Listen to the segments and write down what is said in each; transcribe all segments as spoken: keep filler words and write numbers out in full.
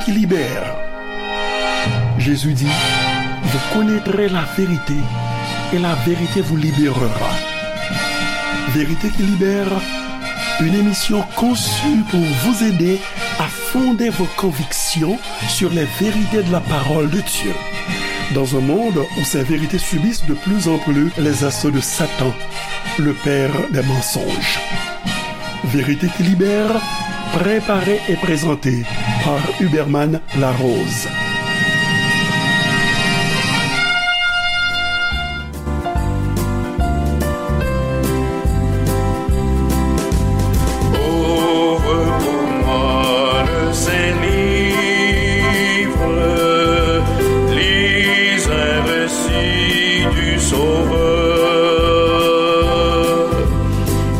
qui libère. Jésus dit, vous connaîtrez la vérité et la vérité vous libérera. Vérité qui libère, une émission conçue pour vous aider à fonder vos convictions sur les vérités de la parole de Dieu. Dans un monde où ces vérités subissent de plus en plus les assauts de Satan, le père des mensonges. Vérité qui libère, préparée et présentée par Huberman Larose. Ouvre pour moi le Saint Livre, lis un récit du Sauveur.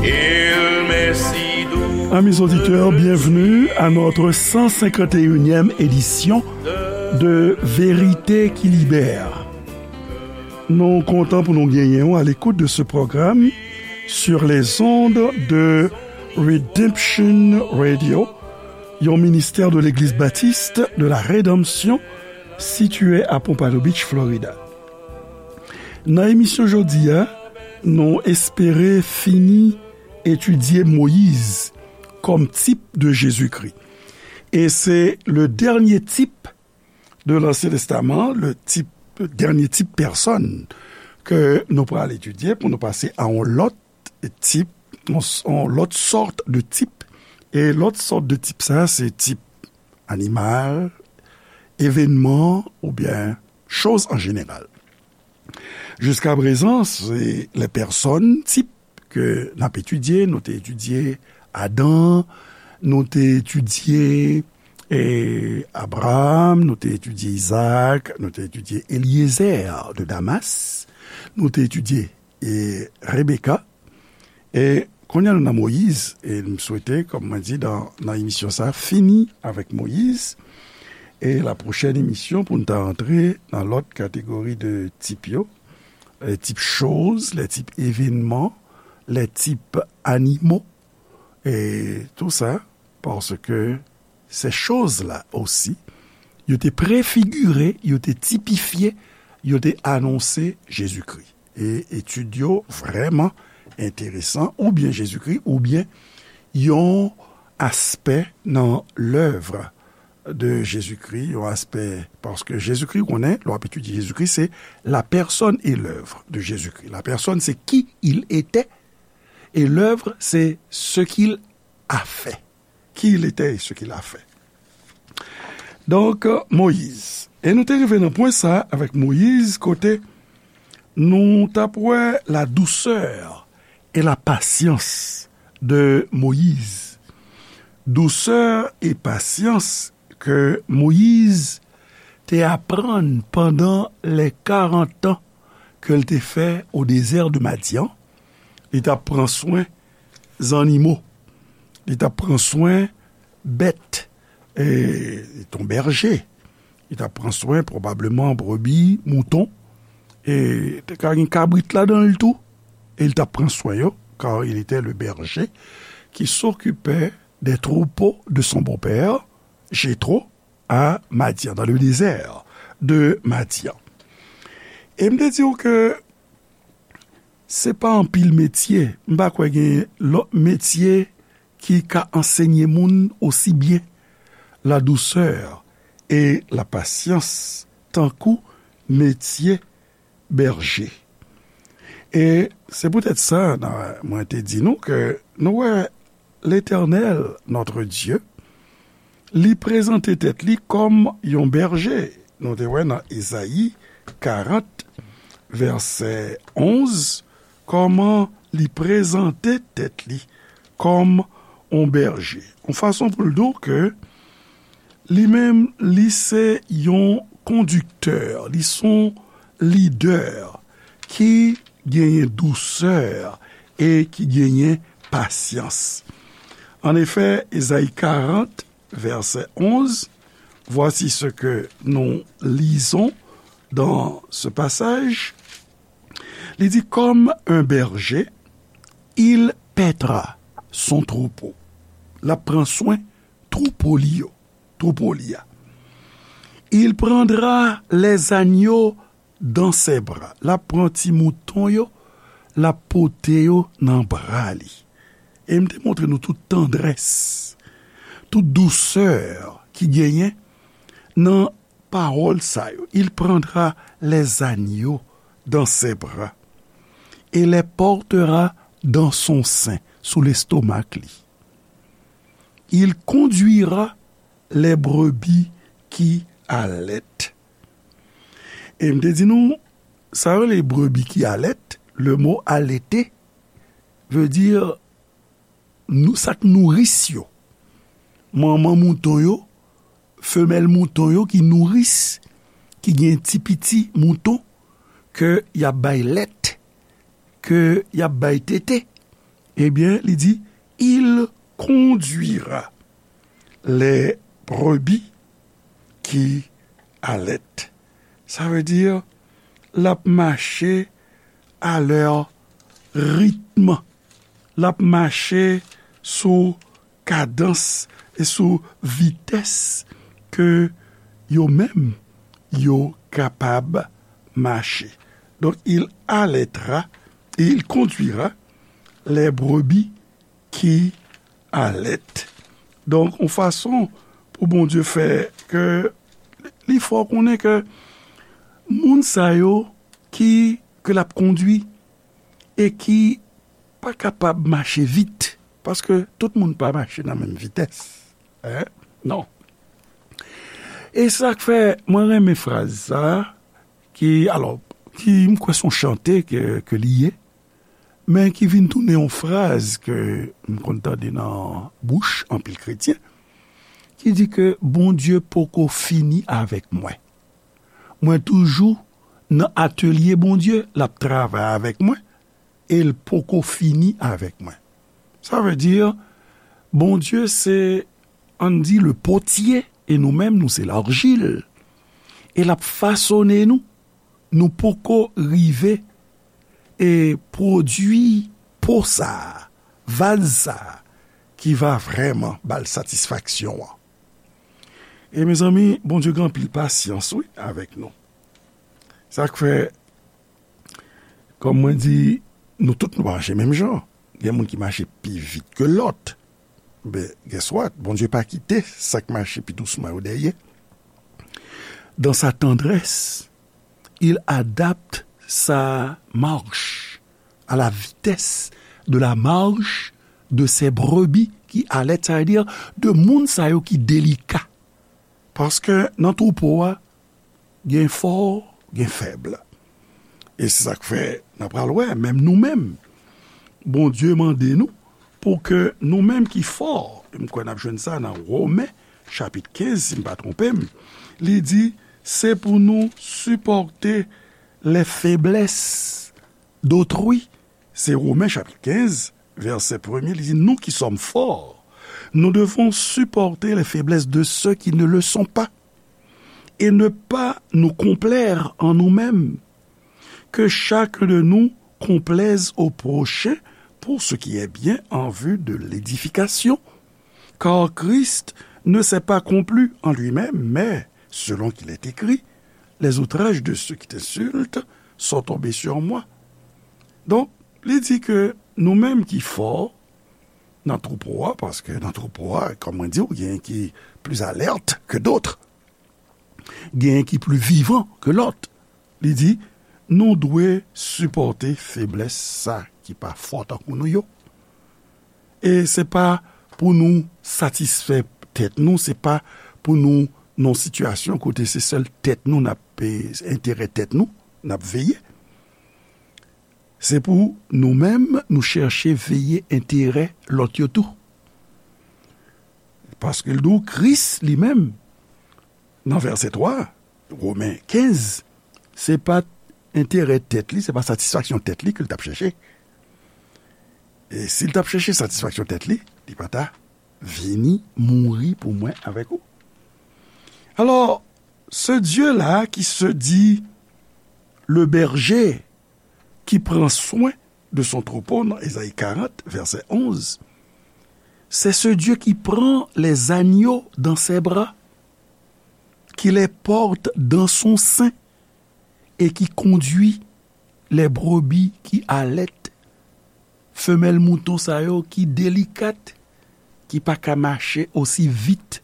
Il m'est si doux. Amis auditeurs, bienvenue à notre cent cinquante et unième édition de Vérité qui Libère. Nou kontan pou nou genyen w à l'écoute de ce programme sur les ondes de Redemption Radio, yon ministè de Legliz Batis de la Redanmsyon sitiye à Pompano Beach, Florida. Nan emisyon jodi a, nou espere fini etidye Moyiz kòm tip de Jezikri. E se le dènye tip de l'Ancien Testament, le tip, dènye tip pèsòn ke nou pral etidye pou nou pase a yon lòt tip, yon, yon lòt sòt de tip. E lòt sòt de tip sa, se tip animal, evènman oubyen choz an jeneral. Jiskaprezan, se lè pèsòn tip ke n ap etidye, nou te etidye Adan, nou te etidye, e, Abraram, nou te etidye Izak, nou te etidye Elyezè de Damas, nou te etidye, e, Rebeka. E kounye a nou nan Moyiz, e m swete, kòm mwen di nan, nan emisyon sa, fini avèk Moyiz. E la pwochèn emisyon pou n ta rantre nan lòt kategori de tip yo, les types choses, les types événements, les types animaux, et tout ça, parce que ces choses-là aussi, yo te prefigire, yo te tipifye, yo te anonse Jezikri. E etid yo vrèman enteresan, oubyen Jezikri, oubyen yon aspè nan lèv de Jezikri, yon aspè, paske Jezikri, ou konnen, lè w ap etidye Jezikri, se la personne et l'œuvre de Jésus-Christ. La personne, c'est qui il était, et l'œuvre, c'est ce qu'il a fait. Qui il était et ce qu'il a fait. Donk, Moyiz. E nou te rive nan pwen sa avèk Moyiz, kote nou t ap wè la douceur et la patience de Moïse. Dousè e pasyans ke Moyiz te aprann pandan lè karant an ke l te fè o dezè de Madyan. Li t ap pran swen zannimo. Li t ap pran swen bèt. E, li t on bèje. Li t ap pran swen pwobableman brebi, mouton. E te ka gen kabrit ladan l tou. E li t ap pran swen yo, car il était le berger qui s'occupait des troupeaux de son beau-père, Jéthro, à Madian, dans le désert de Madian. E m te di w ke se pa anpil metye, m pa kwè gen lòt metye ki ka ansenye moun osi byen la douceur et la patience tankou metye bèje. E se poutèt sa, nan, mwen te di nou ke nou wè Letènèl, notre Dieu, li prezante tèt li kòm yon bèje. Nou te wè nan Ezayi karant, vèsè onz, kòman li prezante tèt li kòm yon bèje. Yon fason pou l di w ke li menm, li se yon kondiktè, li se yon lidè ki genyen dousè e ki genyen pasyans. En effet, Ezayi karant, verset onze, voici ce que nous lisons dans ce passage. Li di, comme un berger, il paîtra son troupeau. L ap pran swen twoupo li yo, twoupo li a. Il prendra les agneaux dans ses bras. L ap pran ti mouton yo, l ap pote yo nan bra li. E m te montre nou tout tandrès, tout dousè ki genyen nan pawòl sa yo. Il prendra les agneaux dans ses bras et les portera dans son sein, sou lestomak li. Il conduira les brebis qui allaitent. E m te di nou, sa yo rele brebi ki alèt, le mo alete ve di nou, sa k nouris yo. Manman mouton yo, femèl mouton yo ki nouris, ki gen ti piti mouton ke y ap bay lèt, ke y ap bay tete. Ebyen, li di, il conduira les brebis qui allaitent. Sa vle di, l ap mache a lè ritm, l ap mache sou kadans e sou vitès ke yo menm yo kapab mache. Donk, il allaitera et il conduira les brebis qui allaitent. Donk, yon fason pou Bondye fè ke li fè w konnen ke moun sa yo ki, ke l ap kondui e ki pa kapab mache vit, paske tout moun pa mache nan menm vitès. Hein? Non. E sa k fè mwen renmen fraz sa, ki, alò, ki m kwè se yon chante ke, ke li ye, men ki vin tounen yon fraz ke m konn tande nan bouch anpil kretyen, ki di ke Bondye poko fini avèk mwen. Mwen toujou nan atelye Bondye, l ap travay avèk mwen, e l poko fini avèk mwen. Sa vle di, Bondye se, ann di, le potye, e nou menm, nou se larjil. E l ap fasone nou. Nou poko rive e pwodui po sa a, vaz sa a, ki va vrèman ba l satisfaksyon an. E mezanmi, Bondye gen anpil pasyans, wi, avèk nou. Sa k fè, kòm mwen di, nou tout nou pa mache menm jan. Gen moun ki mache pi vit ke lòt. Ben, guess what? Bondye pa kite sa k mache pi dousman yo dèyè. Dans sa tendresse, il adapte sa marche à la vitesse de la marche de ses brebis qui allaitent, sa vle di de moun sa yo ki delika. Paske nan twoupo a, gen fò, gen fèb. E se sa k fè n a pral wè, menm nou menm, Bondye mande nou pou ke nou menm ki fò, e m kwè n ap jwenn sa nan Women, chapit kenz, si m pa twonpe m, li di, se pou nou sipòte les faiblesses d'autrui. Se Women, chapit kenz, vèsè premye, li di, nous qui sommes forts, nous devons supporter les faiblesses de ceux qui ne le sont pas et ne pas nous complaire en nous-mêmes. Que chacun de nous complaise au prochain pour ce qui est bien en vue de l'édification. Car Christ ne s'est pas complu en lui-même, mais, selon qu'il est écrit, les outrages de ceux qui t'insultent sont tombés sur moi. Donk, li di ke nou menm ki fò nan twoupo a, paske nan twoupo a, kòm mwen di w, gen ki pli alèt ke dòt. Gen ki pli vivan ke lòt. Li di, nou dwe sipòte feblès sa ki pa fò tankou nou yo. E se pa pou nou satisfè tèt nou, se pa pou nou nan sitiyasyon kote se sèl tèt nou n ap, e, enterè tèt nou n ap veye. Se pou nou menm, nou chèche veye enterè lòt yo tou. Paske l di w, Kris li menm, nan vèsè twa, Women kenz, se pa enterè tèt li, se pa satisfaksyon tèt li ke l t ap chèche. E si l t ap chèche satisfaksyon tèt li, li pa ta vini mouri pou mwen avèk ou. Alors, ce Dieu-là qui se dit le berger, qui prend soin de son troupeau, nan Ezayi karant, vèsè onz, c'est ce Dieu qui prend les agneaux dans ses bras, Il les porte dans son sein et qui conduit les brebis qui allaitent. Femèl mouton sa yo ki delikat, ki pa ka mache osi vit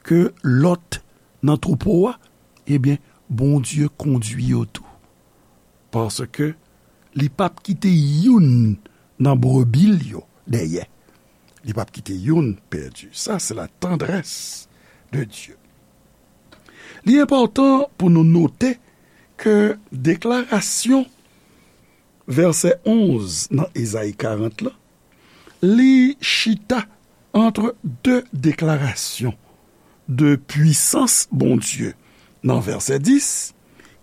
ke lòt nan twoupo a, ebyen, Bondye kondui yo tou. Paske li p ap kite youn nan brebi l yo dèyè. Li p ap kite youn pèdi. Sa, se la tendresse de Dieu. Li enpòtan pou nou note ke deklarasyon vèsè onz nan Ezayi karant la, li chita ant de deklarasyon de pwisans Bondye nan vèsè dis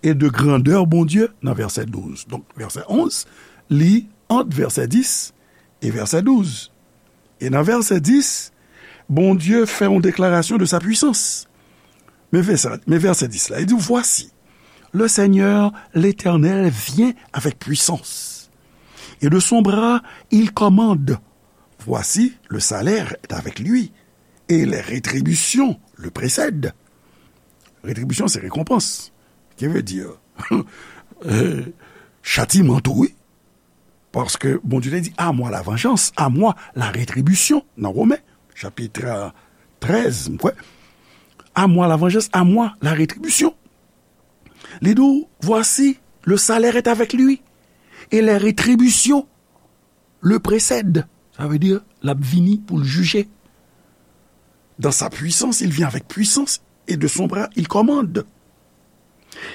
e de grandè Bondye nan vèsè douz. Donk, vèsè onz, li ant vèsè dis e vèsè douz. E nan vèsè dis, Bondye fè yon deklarasyon de sa pwisans. Men vèsè, men vèsè dis la, li di, Voici, le Seigneur l'Éternel vient avec puissance, et de son bras il commande. Voici, le salaire est avec lui, et les rétributions le précèdent. Rétribution, c'est récompense. Qui veut dire, euh, châtiment, tou, wi. Paske Bondye te di, À moi la vengeance, à moi la rétribution, nan Women, chapit trèz, m kwè. À moi la vengeance, à moi la rétribution. Li di w, Voici, le salaire est avec lui, et les rétributions le précèdent. Sa vle di, l ap vini pou l jije. Dans sa puissance, il vient avec puissance, et de son bras, il commande.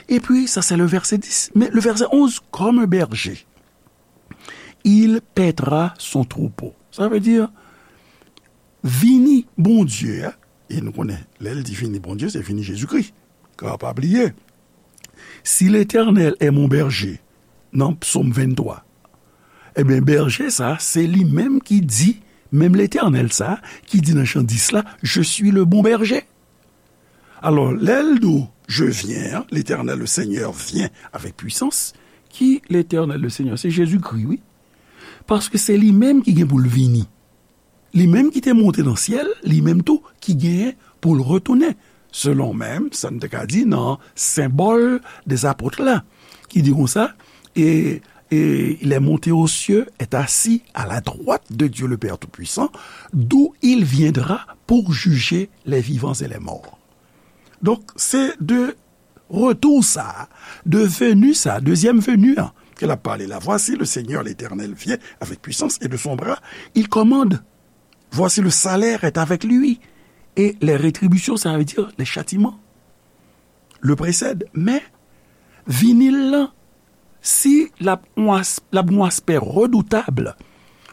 Et puis, ça c'est le verset dix. Mais le verset onze, comme un berger, il paîtra son troupeau. Sa vle di, vini Bondye a, e nou konnen, lè l di vini Bondye, se vini Jezikri. Ka pa bliye, Si l'Éternel est mon berger, nan Psaume vingt-trois, ebyen, bèje sa, se li menm ki di, menm Letènèl sa, ki di nan Jan dis la, Je suis le bon berger. Alò, lè l di w, Je viens, l'Éternel, le Seigneur vient avec puissance, ki Letènèl, le Seigneur? Se Jezikri, wi. Paske se li menm ki gen pou l vini. Li menm ki te monte nan syèl, li menm tou ki genyen pou l retounen. Selon menm sa n te ka di nan Symbole des Apôtres la, ki di konsa, et, et il est monté aux cieux, est assis à la droite de Dieu le Père Tout-Puissant, d'où il viendra pour juger les vivants et les morts. Donk, se de retou sa, de veni sa, dezyèm veni an, ke l ap pale la. Voici, le Seigneur l'Éternel vient avec puissance et de son bras, il commande. Voici, le salaire est avec lui et les rétributions, ça veut dire les châtiments, le précèdent. Men, vini l lan, si l ap yon as-, l ap yon aspè redoutab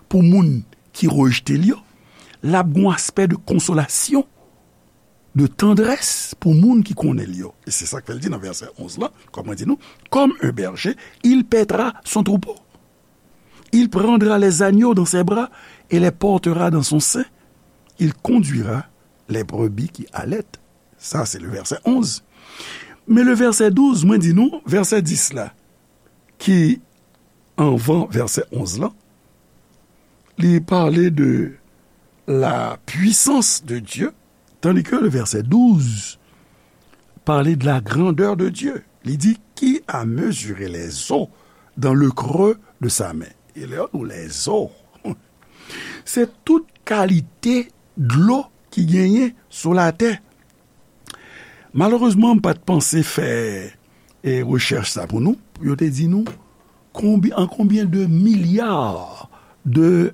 pou moun ki rejte l yo, l ap yon aspè de konsolasyon, de tandrès pou moun ki konnen l yo. E se sa k fè l di nan vèsè onz lan, kòm mwen di nou, Comme un berger, il paîtra son troupeau. Il prendra les agneaux dans ses bras et les portera dans son sein. Il conduira les brebis qui allaitent. Sa, se le verset onze. Men le verset douze, mwen di nou, vèsè dis la, ki anvan vèsè onz lan, li pale de la puissance de Dieu, tandis que le verset douze pale de la grandeur de Dieu. Li di, Qui a mesuré les eaux dans le creux de sa main? E lè yo di w les eaux, se tout kalite dlo ki genyen sou latè. Malerezman, m pa t panse fè, e, rechèch sa pou nou, pou yo te di nou konbi-, an konbyen de milya de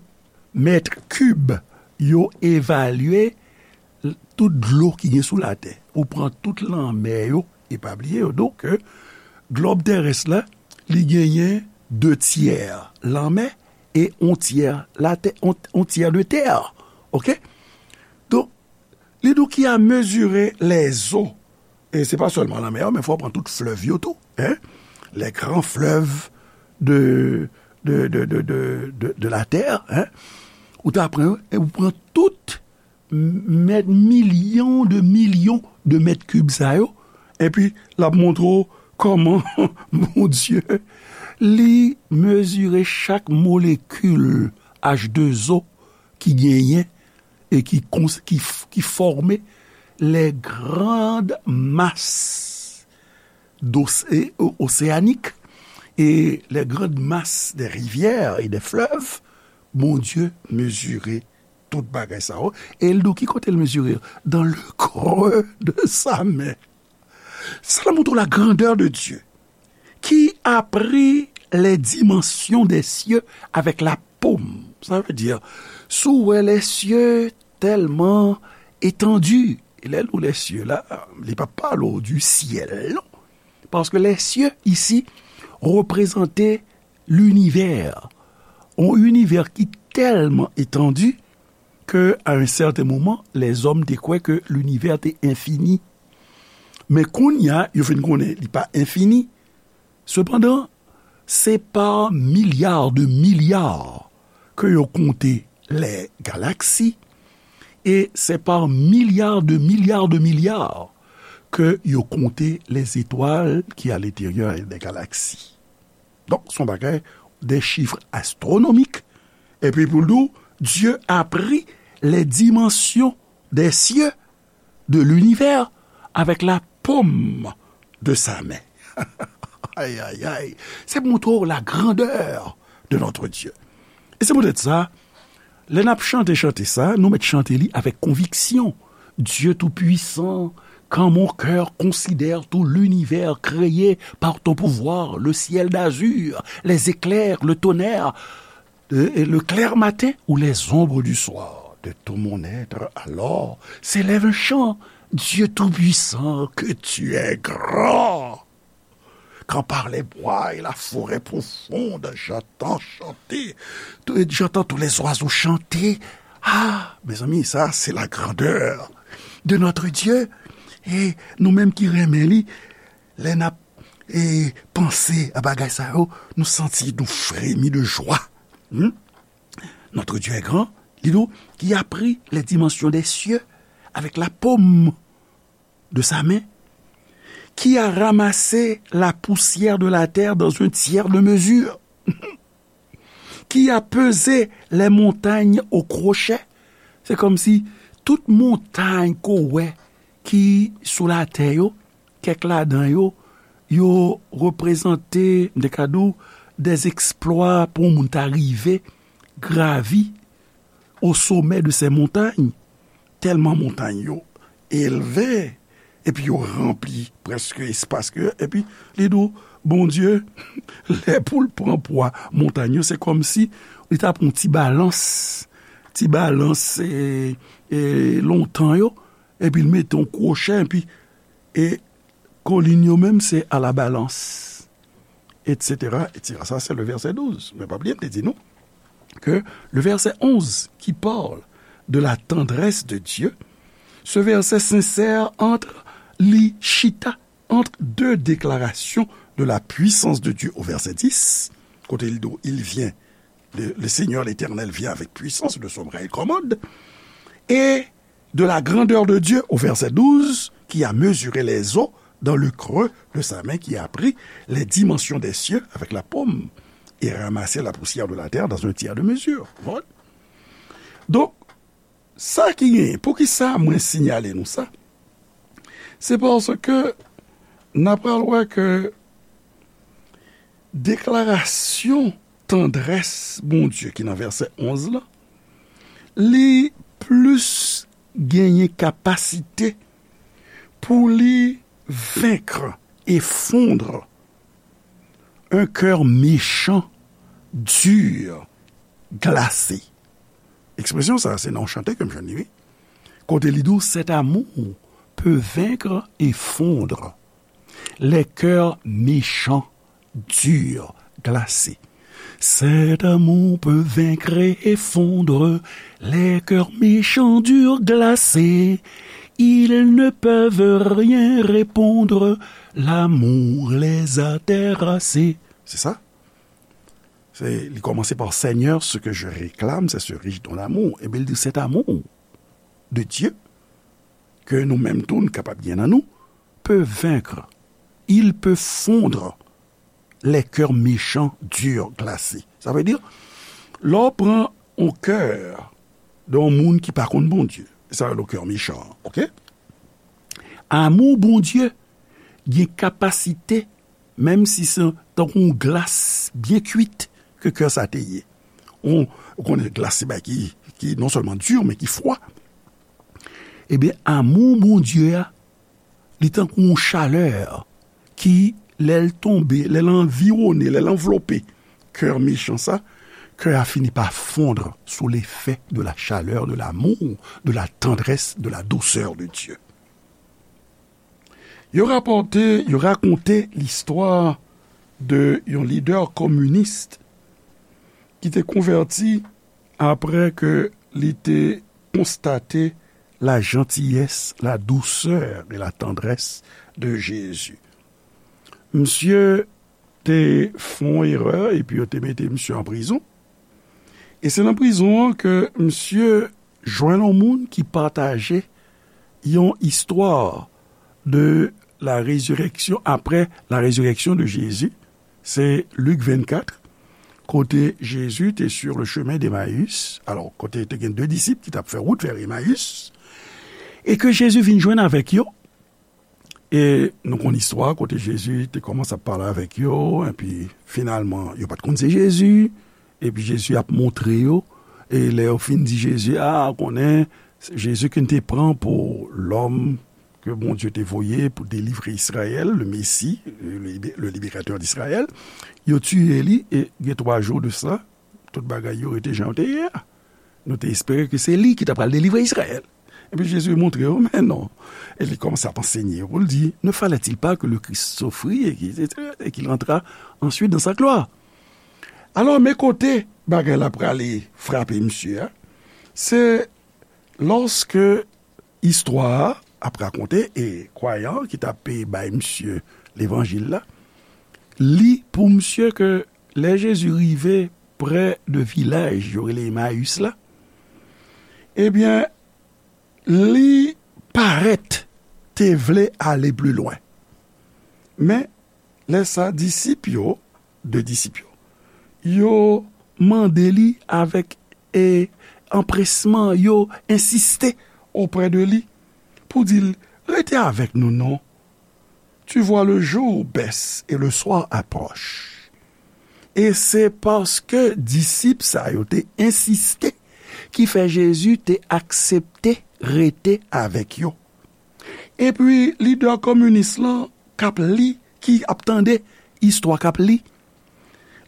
mèt kib yo evalye l-, tout dlo ki gen sou latè. Ou pran tout lanmè yo, e pa bliye yo, donk, ke glòb terès la, li genyen de tyè lanmè e on tyè latè, on, on tyè de tè. Oke? Donk, li di w qui a mesuré les eaux. E se pa sèlman lanmè yo, men fò w pran tout flèv yo tou, en? Les grands fleuves de, de, de la terre, en? Ou ta pran yo, e ou pran tout m-, mèt, milyon de milyon de mèt kib sa yo, epi l ap montre w kòman Bondye, li mezire chak molekil H de O ki genyen e ki kons-, ki f-, ki fòme les grandes masses d'océ- océaniques et les grandes masses des rivières et des fleuves, Bondye mezire tout bagay sa yo. E l di w ki kote l mezire? Dans le creux de sa main. Sa la montre la grandeur de Dieu, qui a pris les dimensions des cieux avec la paume. Sa vle di, si w wè les cieux tellement étendus, e lè l di les cieux la, li pa pale w du ciel, non. Paske les cieux isi reprezante linivè. Yon inivè ki tèlman etandi ke, à un certain moment, lèzòm te kwè ke linivè te enfini. Men kounye a, yo fin konnen li pa enfini. Sepandan, se pa milya de milya ke yo konte les galaxies, e se pa milya de milya de milya ke yo konte les étoiles qui à l'intérieur des galaxies. Donk, se yon bagay, des chiffres astronomiques. Epi pou l di w, Dieu a pris les dimensions des cieux, de l'univers, avec la paume de sa main. Ay, ay, ay. Se pou montre w la grandeur de notre Dieu. E se poutèt sa, lè n ap chante chante sa, nou mèt chante li avèk konviksyon. Dieu tout-puissant, quand mon cœur considère tout l'univers créé par ton pouvoir, le ciel d'azur, les éclairs, le tonnerre, et le clair matin ou les ombres du soir, de tout mon être, alors, s'élève un chant. Dieu tout-puissant, que tu es grand. Quand par les bois et la forêt profonde, j'entends chanter, j'entends tous les oiseaux chanter. Ah, mes amis, ça, c'est la grandeur de notre Dieu. E nou menm ki renmen li, lè n ap e, panse a bagay sa yo, nou santi nou fremi de jwa. Hmm? Notre Dieu est grand, li di w, qui a pris les dimensions des cieux avec la paume de sa main, qui a ramassé la poussière de la terre dans un tiers de mesure, qui a pesé les montagnes au crochet. Se kòmsi tout montay ke w wè ki sou latè yo, kèk ladan yo, yo reprezante, m te ka di w, des exploits pou yon moun ta rive gravi au sommet de ces montagnes. Tèlman montay yo elve, epi yo ranpli prèske espas ke, epi li di w, Bondye, lè pou l pran pwa montay yo, se kòmsi li ta pran ti balans, ti balans, e, e, lontan yo, epi l mete yon kwochè, epi, e, kolin yo menm, se à la balance, et cetera, et cetera. Ça, c'est le verset douze. Men pa bliye, m te di nou que le verset onze qui parle de la tendresse de Dieu, ce verset s'insère entre, li chita entre deux déclarations de la puissance de Dieu au verset dix, kote li di w, il vient, le, le Seigneur l'Éternel vient avec puissance, le souverain commande, et de la grandeur de Dieu au verset douze, qui a mesuré les eaux dans le creux de sa main, qui a pris les dimensions des cieux avec la paume et ramassé la poussière de la terre dans un tiers de mesure. Bon. Donk, sa ki genyen, poukisa mwen siyale nou sa? Se paske n a pral wè ke deklarasyon tandrès Bondye ki nan vèsè onz la, li plis genyen kapasite pou li vaincre, effondre un cœur méchant, dur, glacé. Ekspresyon sa a, se nan yon chante ke m jwenn li, wi. Kote li di w, cet amour peut vaincre et fondre les cœurs méchants, durs, glacés. Cet amour peut vaincre et fondre les cœurs méchants, durs, glacés. Ils ne peuvent rien répondre, l'amour les a terrassés. Se sa? Se, li kòmanse pa, Seigneur, ce que je réclame, c'est ce riche don d'amour. Ebyen, li di, cet amour de Dieu, ke nou menm tou, nou kapab gen nan nou, peut vaincre. Il peut fondre les cœurs méchants, durs, glacés. Sa vle di, lè w pran yon kè de yon moun ki pa konn Bondye, sa rele yon kè mechan, oke? Amou Bondye gen kapasite, menm si se tankou yon glas byen kwit ke kè sa te ye. Ou, ou konnen glas se bagay ki, ki non sèlman di, men ki fwa. Ebyen, amou Bondye a, li tankou yon chalè ki, lè l tonbe, lè l anviwone, lè l anvlope kè mechan sa, kè a fini pa fondre sous l'effet de la chaleur, de l'amour, de la tendresse, de la douceur de Dieu. Yo rapòte, yo rakonte listwa de yon lidè kominis ki te konvèti apre ke li te konstate la gentillesse, la douceur et la tendresse de Jésus. Misye te fè yon erè epi yo te mete misye an prizon. E se nan prizon an ke misye jwenn yon moun ki pataje yon istwa de la résurrection, après la résurrection de Jésus. Se Lik vennkat, kote Jezi te sur le chemin d'Emmaüs, alò, kote te gen de disip ki t ap fè wout vè Emmaüs, e ke Jezi vin jwenn avèk yo. E nou konn istwa kote Jezi te kòmanse ap pale avèk yo, epi finalman, yo pa t konn se Jezi, epi Jezi ap montre yo, e lè yo fin di Jezi, a, konnen, Jezi ke n te pran pou lòm ke Bondye te voye pou delivre Izrayèl, le Messie, le, le libérateur d'Israël, yo tiye li, e gen twa jou de sa, tout bagay yo rete jan yo te ye a. Nou te espere ke se li ki ta pral delivre Izrayèl. Epi Jezi montre yo, men non. E li kòmanse ap ansenye yo pou l di, ne fallait-il pas que le Christ souffrit et qu'il, et qu'il entra ensuite dans sa gloire? Alò, men kote bagay la prale frape misye a, se lòske istwa a ap rakonte, e kwayan ki t ap bay misye levanjil la, li pou misye ke lè Jezi rive prè de vilaj yo rele Emayis la, ebyen, li parèt te vle ale pli lwen. Men, lè sa, disip yo, de disip yo, yo mande li avèk, e, anpresman, yo ensiste oprè de li pou di l, rete avèk nou non. Tu vois, le jour baisse et le soir approche. E se paske disip sa yo te ensiste ki fè Jezi te aksepte rete avèk yo. Epi, lidè kominis lan k ap li, ki ap tande istwa k ap li,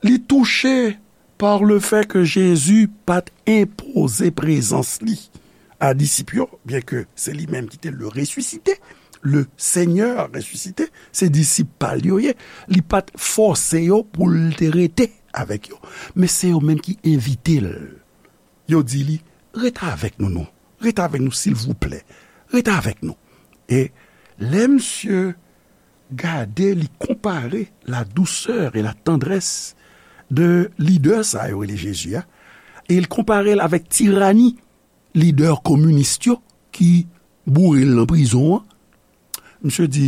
li touche par le fait que Jezi pa t enpoze prezans li a disip yo, byenke se li menm ki te le ressuscité, le Seigneur ressuscité, se disip pa l yo ye, li pa t fòse yo pou l te rete avèk yo. Men se yo menm ki envite l. Yo di li, rete avèk nou non. Rete avèk nou, silvouplè. Rete avèk nou. E lè misye gade, li konpare la douceur et la tendresse de lidè sa yo rele Jezi a, e l konpare l avèk tirani lidè kominis yo ki boure l nan prizon an. Misye di,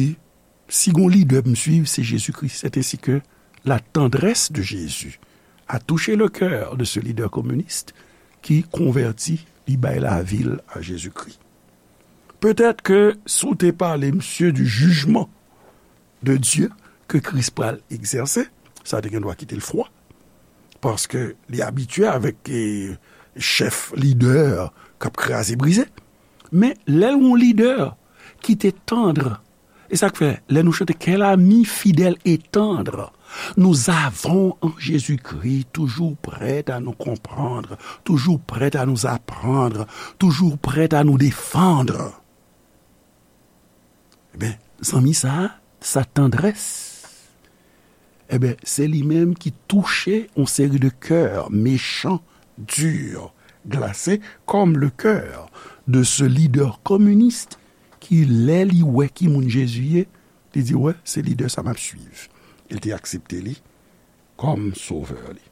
si gon lidè pou m swiv, se Jezikri. C'est ainsi que la tendresse de Jésus a touché le cœur de ce leader communiste qui convertit, li bay lavi l a Jezikri. Petèt ke si w te pale misye du jugement de Dieu ke Kris pral egzèse, sa te gen dwa kite l fwa. Paske li abitye avèk, e, chèf lidè k ap kraze brize. Men lè l yon lidè ki te tandr, e sa k fè, lè nou chante, quel ami fidèle et tendre nous avons en Jésus-Christ, toujours prêt à nous comprendre, toujours prêt à nous apprendre, toujours prêt à nous défendre. Ebyen, zanmi sa a, sa tandrès, ebyen, se li menm ki touche yon seri de kè mechan, di, glase, comme le cœur de ce leader communiste ki, lè li wè ki moun Jezi ye, li di, wè, se lidè sa m ap swiv. E l te aksepte li kòm sovè li.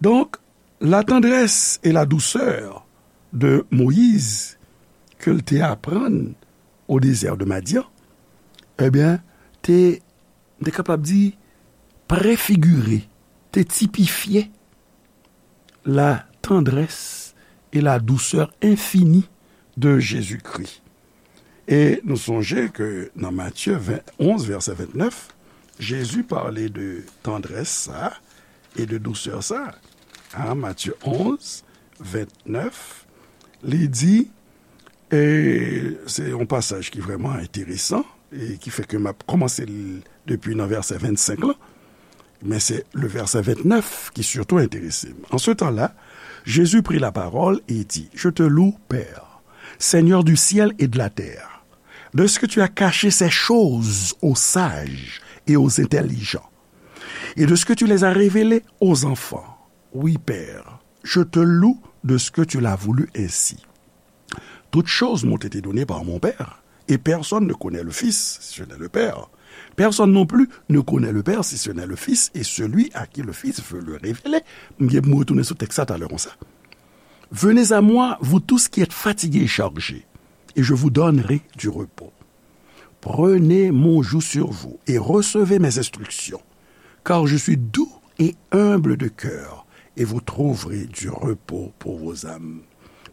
Donk, la tendresse et la douceur de Moïse ke l te aprann o dezè de Madyan, ebyen, te, m te kapab di, prefigire, te tipifye la tendresse et la douceur infinie de Jésus-Christ. E nou sonje ke nan Matye ven, onz, vèsè vennèf, Jezi pale de tandrès sa e de dousè sa. An Matye onz, vennèf, li di, e se yon pasaj ki vrèman enteresan, e ki fè ke m ap kòmanse l depi nan vèsè vennsenk lan, men se le vèsè vennèf ki sitou enterese m. En ce temps-là, Jésus prit la parole et dit, Je te loue, Père, Seigneur du ciel et de la terre, de ce que tu as caché ces choses aux sages et aux intelligents, et de ce que tu les as révélées aux enfants. Oui, Père, je te loue de ce que tu l'as voulu ainsi. Toutes choses m'ont été données par mon Père, et personne ne connaît le Fils si ce n'est le Père. Personne non plus ne connaît le Père si ce n'est le Fils et celui à qui le Fils veut le révéler. M gen pou m retounen sou tèks sa talè konsa. Venez à moi, vous tous qui êtes fatigués et chargés, et je vous donnerai du repos. Prenez mon joug sur vous et recevez mes instructions, car je suis doux et humble de cœur, et vous trouverez du repos pour vos âmes.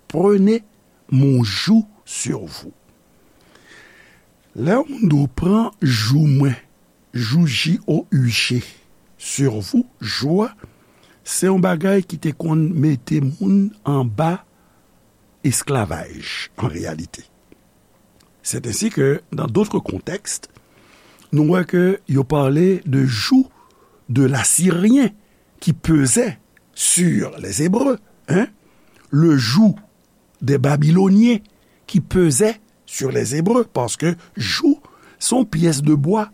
Prenez mon joug sur vous. Lè yon moun di w pran jou mwen, jou J O U G, sur vous, jou a, se yon bagay ki te konn mete moun anba esklavaj, an reyalite. C'est ainsi que, dans d'autres contextes, nou wè ke yo pale de joug de l'Assyrien qui pesait sur les Hébreux, hein? Le joug des Babyloniens qui pesait sur les Hébreux, paske joug se yon pyès de bwa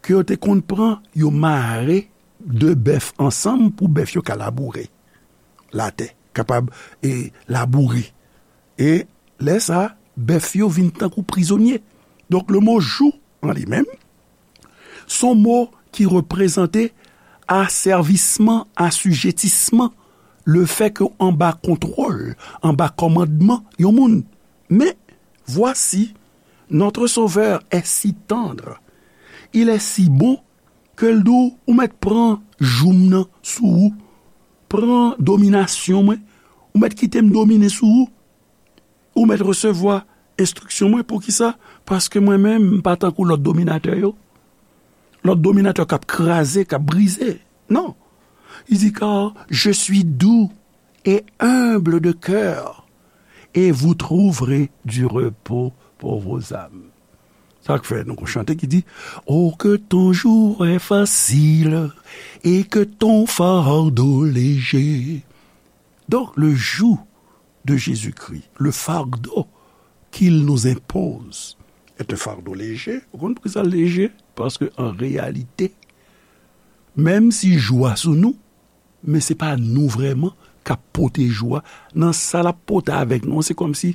ke yo te konn pran, yo mare de bèf ansanm pou bèf yo ka laboure latè, kapab, e, laboure. E lè sa, bèf yo vin tankou prizonye. Donk, le mo joug an li menm, se yon mo ki reprezante asèvisman, asijetisman, le fè ke w anba kontwòl, anba kòmandman yon moun. Men, voici, notre Sauveur est si tendre, il est si bon, ke l di w, ou mèt pran joug m nan sou ou, pran dominasyon mwen, ou mèt kite m domine sou ou, ou mèt resevwa enstriksyon mwen. Poukisa? Paske mwen menm, m pa tankou lòt dominatè yo. Lòt dominatè k ap kraze, k ap brize. Non. Il dit, car je suis doux et humble de cœur, et vous trouverez du repos pour vos âmes. Sa k fè nou gon chante ki di, Oh, que ton joug est facile et que ton fardeau léger. Donc, le joug de Jésus-Christ, le fardeau qu'il nous impose, est un fardeau léger. Ou konn poukisa l leje? Paske an reyalite, menm si joug a sou nou, men se pa nou vrèman k ap pote joug a. Nan sa l ap pote avèk nou an, se kòmsi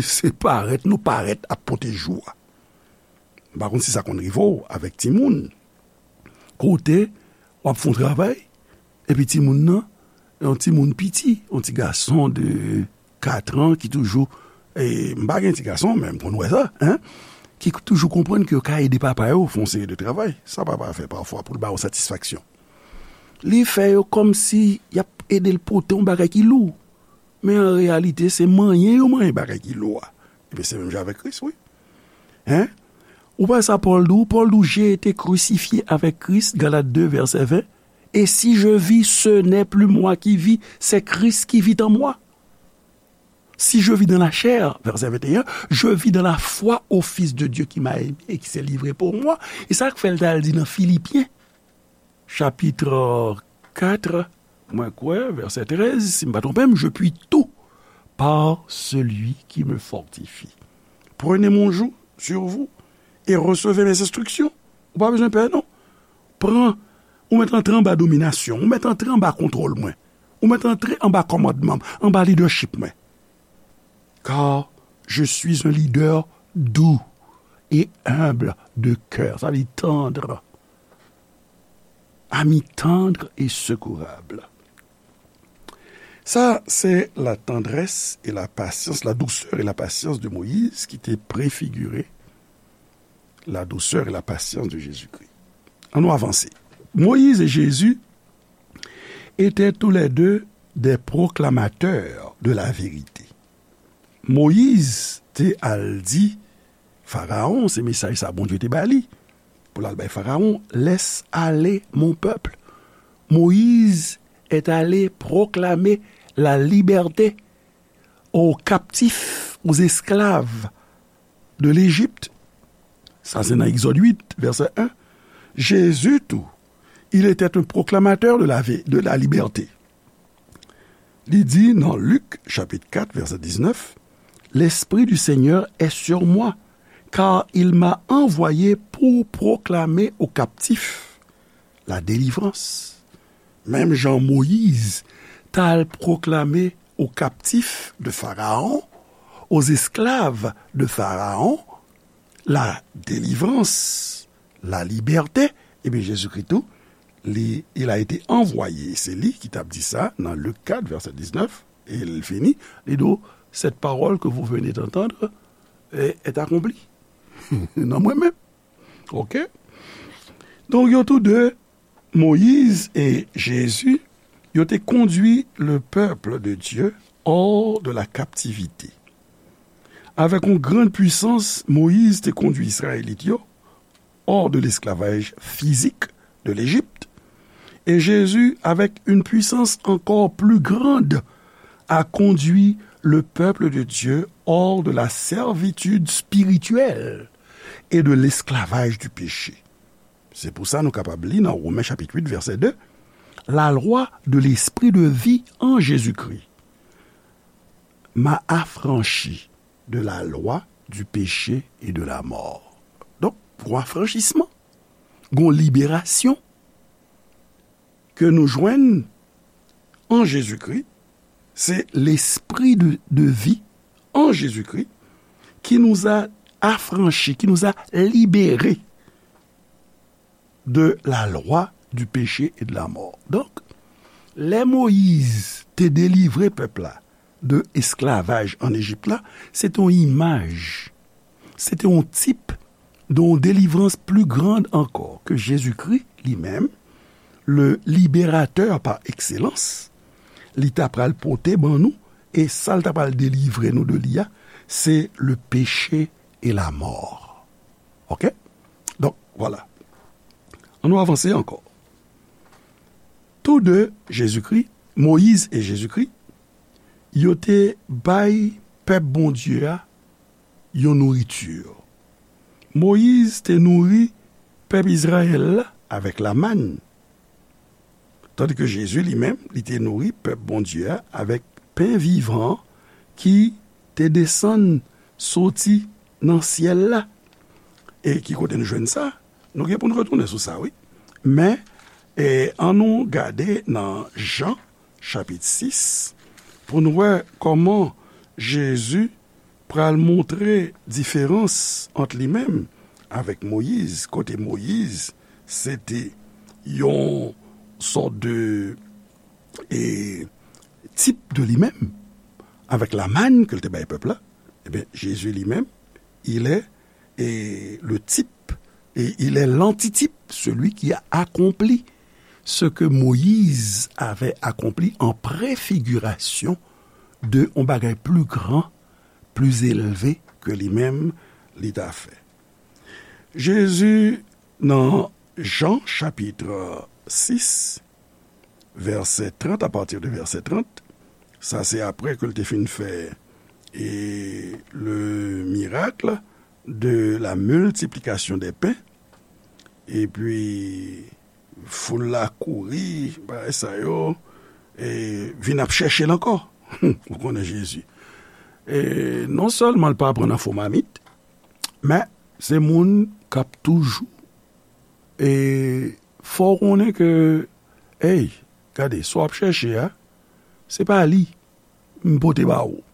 se parèt, nou parèt ap pote joug a. M pa konn si sa konn rive w avèk timoun. Kote w ap fè yon travay, epi timoun nan, yon timoun piti, yon ti gason de kat an ki toujou, e, m pa gen ti gason, men m konn wè sa, en, ki toujou konprann ke yo ka ede papa yo fè yon seri de travay. Sa papa fè pafwa pou l ba yo satisfaksyon. Li fè yo kòmsi y ap ede l pote yon bagay ki lou. Men an reyalite, se manyen yo manyen bagay ki lou a. Ebyen, se menm jan avèk Kris, wi. Hein? Ou pa sa Pòl di w? Pòl di w, J'ai été crucifié avec Christ, Galates deux, verset vingt. Et si je vis, ce n'est plus moi qui vis, c'est Christ qui vit en moi. Si je vis dans la chair, verset vingt et un, je vis dans la foi au Fils de Dieu qui m'a aimé et qui s'est livré pour moi. E sa k fè l t al di nan Filipyen, chapit kat, mwen kwè, vèsè trèz, si m pa twonpe m, Je puis tout par celui qui me fortifie. Prenez mon joug sur vous et recevez mes instructions. Ou pa bezwen pè, non. Pran, ou mèt antre anba dominasyon, ou mèt antre anba kontwòl mwen, ou mèt antre anba kòmandman m, anba lidèchip mwen. Car je suis un leader doux et humble de cœur. Sa vle di tendre. Ami tendre et secourable. Sa, se la tendresse et la patience, la douceur et la patience de Moïse ki te prefigire la douceur et la patience de Jésus-Christ. Ann nou avanse. Moïse et Jésus étaient tous les deux des proclamateurs de la vérité. Moyiz te al di Farawon, se mesaj sa Bondye te ba li. Pou l al bay Farawon, laisse aller mon peuple. Moïse est allé proclamer la liberté aux captifs, aux esclaves de l'Égypte. Sa se nan Egzòd uit, vèsè en. Jezi tou, il était un proclamateur de la, de la liberté. Li di nan Lik, chapit kat, vèsè diznèf, L'Esprit du Seigneur est sur moi, car il m'a envoyé pour proclamer aux captifs la délivrance. Menm jan Moyiz t al pwoklame aux captifs de Pharaon, aux esclaves de Pharaon, la délivrance, la liberté, ebyen, Jezikri tou, li, il a été envoyé. Se li ki t ap di sa nan Lik kat, vèsè diznèf, e l fini, li di w, cette parole que vous venez d'entendre est, est accomplie. Nan mwen menm. Ok? Donk, yo tou de, Moïse et Jésus, yo te kondui le peuple de Dieu hors de la captivité. Avec une grande puissance, Moïse te kondui Izrayelit yo hors de l'esclavage physique de l'Égypte. Et Jésus, avec une puissance encore plus grande, a conduit le peuple de Dieu hors de la servitude spirituelle et de l'esclavage du péché. Se pou sa nou kapab li nan Women chapit uit, vèsè de, La loi de l'esprit de vie en Jésus-Christ m'a affranchi de la loi du péché et de la mort. Donk, gon afranchisman, gon liberasyon ke nou jwenn an Jezikri, se lespri de, de vi an Jezikri ki nous a affranchis, qui nous a libérés de la loi du péché et de la mort. Donk, lè Moyiz te delivre pèp la de esklavaj an Ejip la, se te yon imaj, se te yon tip de yon delivrans pli grand ankò ke Jezikri li menm, le libérateur par excellence, li ta pral pote ban nou, e sa l ta pral delivre nou de li a, se le péché et la mort. Ok? Donk, vwala. Ann nou avanse ankò. Tou de, Jezikri, Moyiz e Jezikri, yo te bay pèp Bondye a yon nouriti. Moyiz te nouri pèp Izrayèl la avèk lamann, tandike Jezi li menm, li te nouri pèp Bondye a avèk pen vivan ki te desann soti nan syèl la. E ki kote nou jwenn sa? Nou gen pou n retounen sou sa, wi. Men, e, ann nou gade nan Jan, chapit sis, pou n wè kòman Jezi pral montre diferans ant li menm avèk Moyiz, kote Moyiz, se te yon sòt de, e, tip de li menm, avèk lamann ke l te bay pèp la. Ebyen, Jezi li menm, il est, e, le type, et il est l'antitype, celui qui a accompli ce que Moïse avait accompli en préfiguration de yon bagay pli gran, pli elve ke li menm li ta fè. Jezi, nan Jan chapit sis, vèsè trant, à partir de vèsè trant, sa se apre ke l te fin fè, e, le miracle de la multiplication des pains, epi foul la kouri, bagay sa yo, e vin ap chèche l ankò. Ou konnen Jezi. E non sèlman l pa pran nan fo mamit, men se moun k ap toujou, e fè w konnen ke, ey, gade, sa w ap chèche a, se pa li m pote ba ou.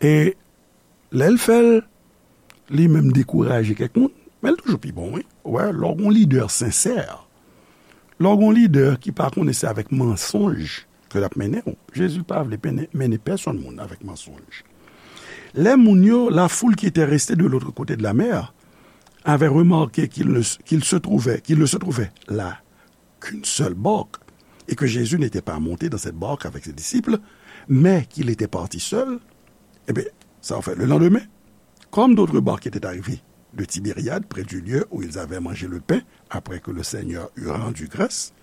E lè l fè l, li menm dekouraje kèk moun, men l toujou pi bon, wi. Ou wè, lè w gon lidè sensè, lè w gon lidè ki pa konnen se avèk mansonj ke l ap mennen w, Jezi pa vle mennen, mennen pèsonn moun avèk mansonj. Les moun yo, la foule qui était restée de l'autre côté de la mer, avait remarqué qu'il ne, qu'il se trouvait, qu'il ne se trouvait là qu'une seule barque, et que Jésus n'était pas monté dans cette barque avec ses disciples, mais qu'il était parti seul, eh bien, ça en fait, le lendemain, comme d'autres barques étaient arrivées de Tibériade, près du lieu où ils avaient mangé le pain, après que le Seigneur eut rendu grâce,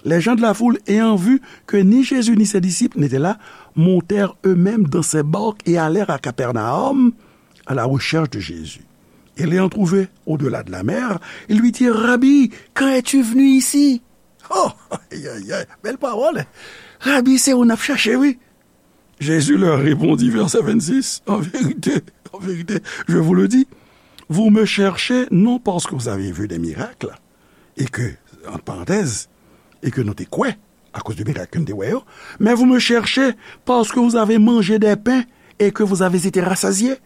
les gens de la foule, ayant vu que ni Jésus ni ses disciples n'étaient là, montèrent eux-mêmes dans ces barques et allèrent à Capernaum à la recherche de Jésus. Et l'ayant trouvé au-delà de la mer, ils lui dirent, Rabbi, quand es-tu venu ici? Oh, aïe, aïe, aïe, bèl pawòl. Rabi, se ou n ap chache, wi. Jésus leur répondit, verset vingt-six, en vérité, en vérité, je vous le dis, vous me cherchez non parce que vous avez vu des miracles, et que, entre parenthèses, et que nou te kwè, akoz de mirak ke n te wè yo, mais vous me cherchez parce que vous avez mangé des pains et que vous avez été rassasiés.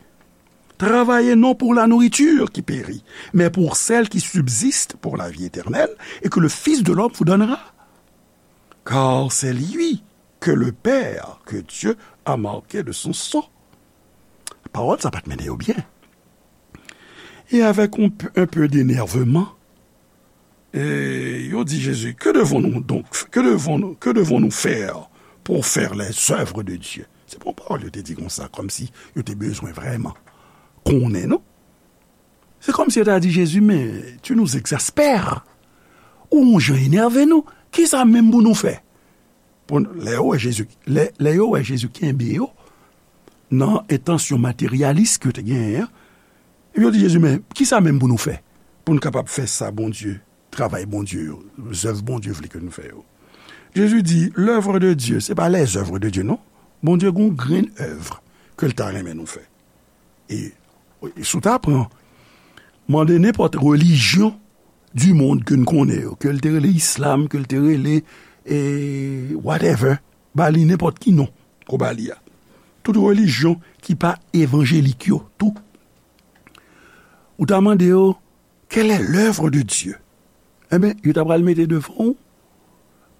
Travaillez non pour la nourriture qui périt, mais pour celle qui subsiste pour la vie éternelle et que le Fils de l'homme vous donnera. Car c'est lui que le Père, que Dieu a marqué de son sang. Pawòl sa pa t mennen yo byen. Et avec un peu, un peu d'énervement, e yo di Jezi, que devons-nous donc, que devons-nous, que devons-nous faire pour faire les œuvres de Dieu? Se pa yon pawòl yo te di konsa, kòmsi yo te bezwen vrèman konnen, non? Se kòmsi yo ta di Jezi, men tu nous exaspères. Ou yon jan enève nou. Kisa menm pou nou fè? Pou n- lè yo wè Jezi, lè, lè yo wè Jezi kenbe yo nan entansyon materyalis ke yo te genyen an, epi yo di Jezi, men kisa menm pou nou fè? Pou n kapab fè sa Bondye, travay Bondye yo, zèv Bondye vle ke nou fè yo. Jezi di, l'œuvre de Dieu, se pa les œuvres de Dieu, non. Bondye gon grenn èv ke l ta renmen nou fè. E, e si w ta pran, mande nenpòt relijyon du monde ke n konnen yo, ke l te rele islam, ke l te rele, e, whatever, ba li nenpòt ki non, ou ba li a. Tout relijyon ki pa evanjelik yo, tou. Ou ta mande yo, quelle est l'œuvre de Dieu? Enben, yo ta pral mete devan w,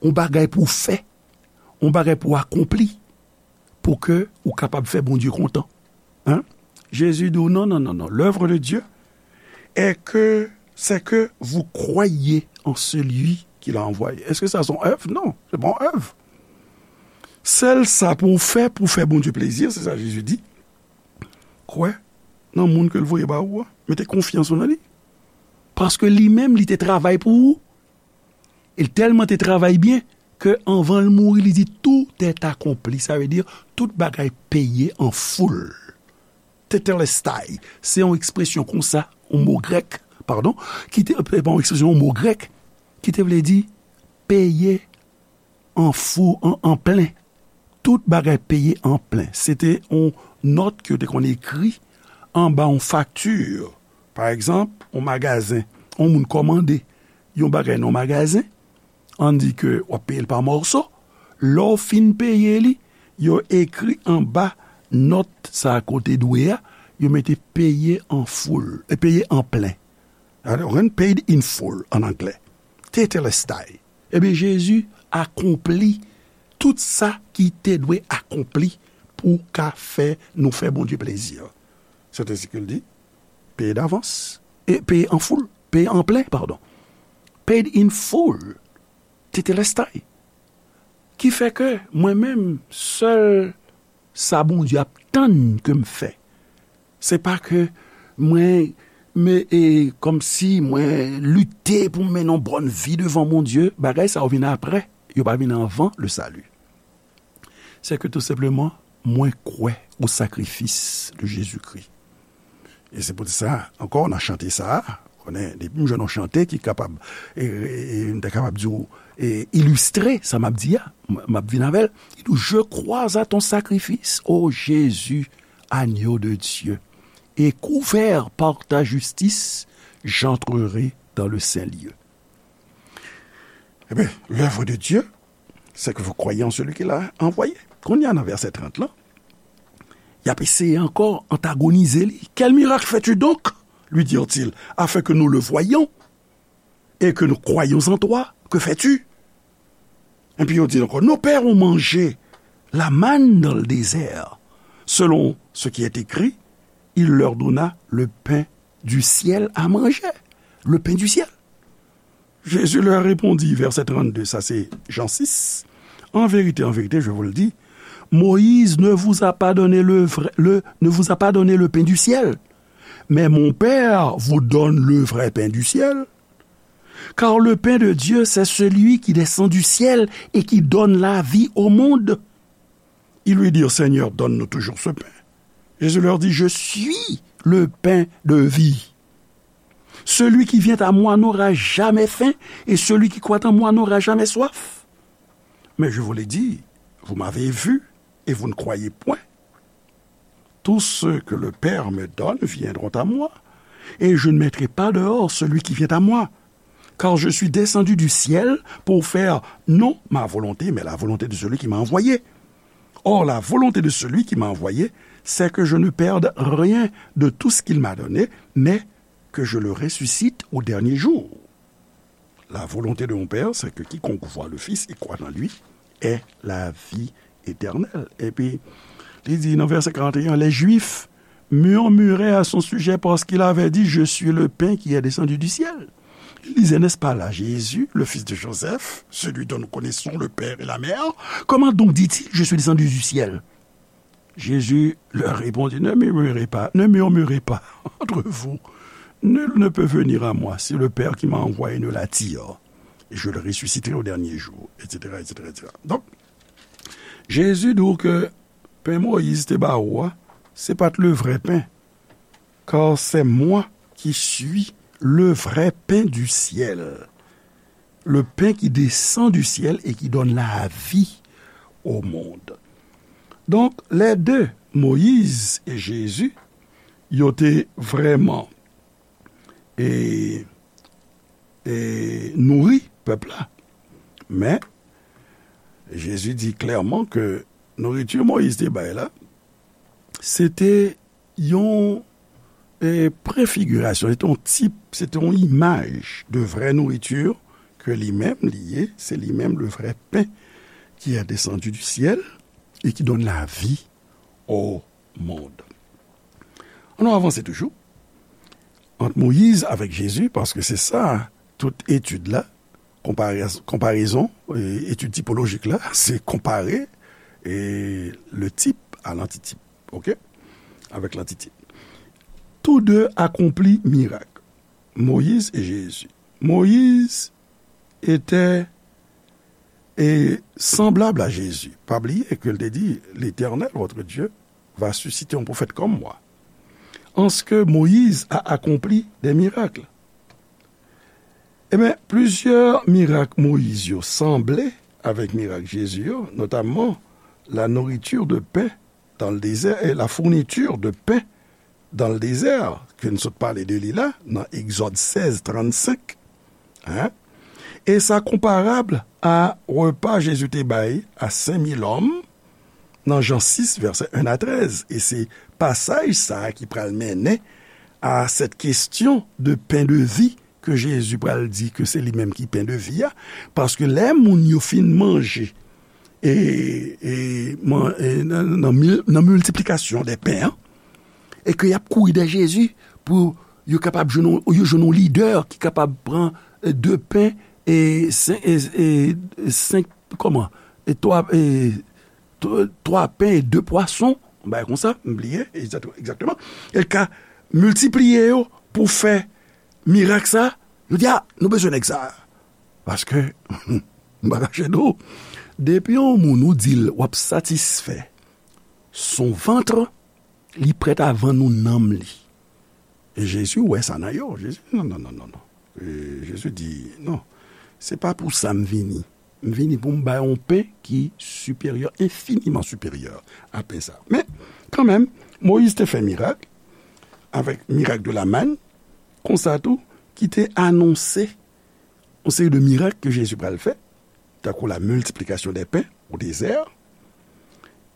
yon bagay pou w fè, yon bagay pou w akonpli, pou ke ou kapab fè Bondye kontan. Hein? Jezi di w, non, non, non, non. L'œuvre de Dieu est que, c'est que vous croyez en celui qui l'a envoyé. Èske sa se yon èv? Non, se pa yon èv. Sèl sa pou w fè, pou w fè Bondye plezi, se sa Jezi di. Kwè nan moun ke l voye ba ou a. Mete konfyans ou nan li. Paske li menm, li te travay pou ou. E l tèlman te travay byen ke anvan l mouri, li di, tout est accompli. Sa vle di, tout bagay peye an foul. Tetelestai, se yon ekspresyon konsa, yon mo grèk, padon, ki te, pa yon ekspresyon, yon mo grèk, ki te vle di peye an fou, an, an plen. Tout bagay peye an plen. Se te yon nòt ke yo te konn ekri anba yon fakti. Pa egzanp, yon magazen, yon moun kòmande yon bagay nan yon magazen, ann di ke w ap peye l pa mòso. Lè w fin peye li, yo ekri anba nòt sa a kote dwe a, yo mete peye an foul, e peye an plen. Alò, rent paid in full an anglè. Tetelestai. Ebyen, Jezi akonpli tout sa ki te dwe akonpli pou ka fè nou fè Bondye plezi. Se te sa ke l di, peye davans, e peye an foul, peye an plen, padon. Paid in full, tetelestai. Ki fè ke mwen menm, sèl sa Bondye ap tann ke m fè. Se pa ke mwen, men, e, kòmsi mwen lite pou m mennen yon bòn vi devan Bondye. Bagay sa yo vin apre, yo pa vin anvan le salut. Se ke tou senpleman, mwen kwè o sakrifis de Jezikri. E se poutèt sa, ankò, nan chante sa a, konnen, depi m jwenn yon chante ki kapab, e, e, e, m ta kapab di w, e, ilistre sa m ap di a, m, m ap vin avè l. Il dit, je crois à ton sacrifice, ô Jésus, agneau de Dieu, et couvert par ta justice, j'entrerai dans le saint lieu. Ebyen, l'œuvre de Dieu, c'est que vous croyez en celui qui l'a envoyé. Kounye a nan vèsè trant lan, y ap eseye ankò antagonize li. Quel miracle fais-tu donc? Lui dirent-ils, afin que nous le voyions et que nous croyions en toi. Que fais-tu? Epi yo di ankò, nos pères ont mangé la manne dans le désert. Selon ce qui est écrit, il leur donna le pain du ciel à manger. Le pain du ciel. Jésus leur répondit, verset trente-deux, sa se Jan sis, en vérité, en vérité, je vous le dis, Moïse ne vous a pas donné le vrai, le, ne vous a pas donné le pain du ciel, Mais mon Père vous donne le vrai pain du ciel, car le pain de Dieu, c'est celui qui descend du ciel et qui donne la vie au monde. Ils lui dirent, Seigneur, donne-nous toujours ce pain. Jésus leur dit, je suis le pain de vie. Celui qui vient à moi n'aura jamais faim, et celui qui croit en moi n'aura jamais soif. Mais je vous l'ai dit, vous m'avez vu, et vous ne croyez point. Tous ceux que le Père me donne viendront à moi, et je ne mettrai pas dehors celui qui vient à moi, car je suis descendu du ciel pour faire non ma volonté, mais la volonté de celui qui m'a envoyé. Or, la volonté de celui qui m'a envoyé, c'est que je ne perde rien de tout ce qu'il m'a donné, mais que je le ressuscite au dernier jour. La volonté de mon Père, c'est que quiconque voit le Fils et croit en lui ait la vie éternelle. Epi, li di nan vèsè karant e en, les Juifs murmuraient à son sujet parce qu'il avait dit, je suis le pain qui est descendu du ciel. Ils disaient, n'est-ce pas là Jésus, le fils de Joseph, celui dont nous connaissons le père et la mère ? Comment donc dit-il, je suis descendu du ciel ? Jésus leur répondit, ne murmurez pas, ne murmurez pas entre vous. Nul ne peut venir à moi si le Père qui m'a envoyé ne l'attire. Et je le ressusciterai au dernier jour, et cetera, et cetera, et cetera. Donk, Jezi di w ke pen Moyiz te ba ou a, se pa t le vrè pen. Car c'est moi qui suis le vrai pain du ciel, le pain qui descend du ciel et qui donne la vie au monde. Donk, les deux, Moyiz e Jezi, yo te vrèman e, e nouri pèp la. Men, Jezi di klèman ke nouriti Moyiz te bay la, se te yon, e, prefigirasyon, se te yon tip, se te yon imaj de vrè nouriti ke li menm li ye, se li menm le vrai pain qui est descendu du ciel et qui donne la vie au monde. Ann nou avanse toujou ant Moyiz avèk Jezi, paske se sa, tout etid la, konpare-, konparezon, e, etid tipolojik la, se konpare, e, le type à l'antitype, ok? Avec l'antitype. Tous deux accomplit miracle, Moïse et Jésus. Moïse était et semblable à Jésus. Pa bliye ke l te di, L'Éternel, votre Dieu, va susciter un prophète comme moi. En ce que Moïse a accompli des miracles. Ebyen, plizyè mirak Moyiz yo sanble avèk mirak Jezi yo, notamman la nourriture de pain dans le désert et la fourniture de pain dans le désert, ke n sot pale de li la, nan Egzòd sèz trannsenk. Hein? E sa konparab a repa Jezi te bay a senk mil òm nan Jan sis, vèsè en a trèz. E se pasaj sa a ki pral mennen a cette question de pain de vie ke Jezi pral di ke se li menm ki pen de vi a, paske lè moun yo fin manje e, e, man-, e nan, nan mil-, nan miltiplikasyon de pen an, e ke y ap kouri dèyè Jezi pou yo kapab jwenn yon, yo jwenn yon lidè ki kapab pran, e, de pen e sen-, e, e senk, kòman? E twa, e twa, twa pen e de pwason, yon bagay konsa, m bliye, egzakteman, egzakteman. E l ka miltipliye yo pou fè mirak sa, yo di, a, nou bezwen nèg sa. Paske, m pa kache nou, depi yon moun ou di l w ap satisfè son vant, li prèt a vann ou nanm li. E Jezi wè sa nan yo. Jezi, non, non, non, non, non. E Jezi di, non, se pa pou sa m vini. M vini pou m bay yon pen ki siperyè, enfiniman siperyè a pen sa. Men, kanmenm, Moyiz te fè mirak, avèk mirak de la manne, konsa tou, ki te anonse yon seri de mirak ke Jezi pral fè, tankou la miltiplikasyon de pen o dezè,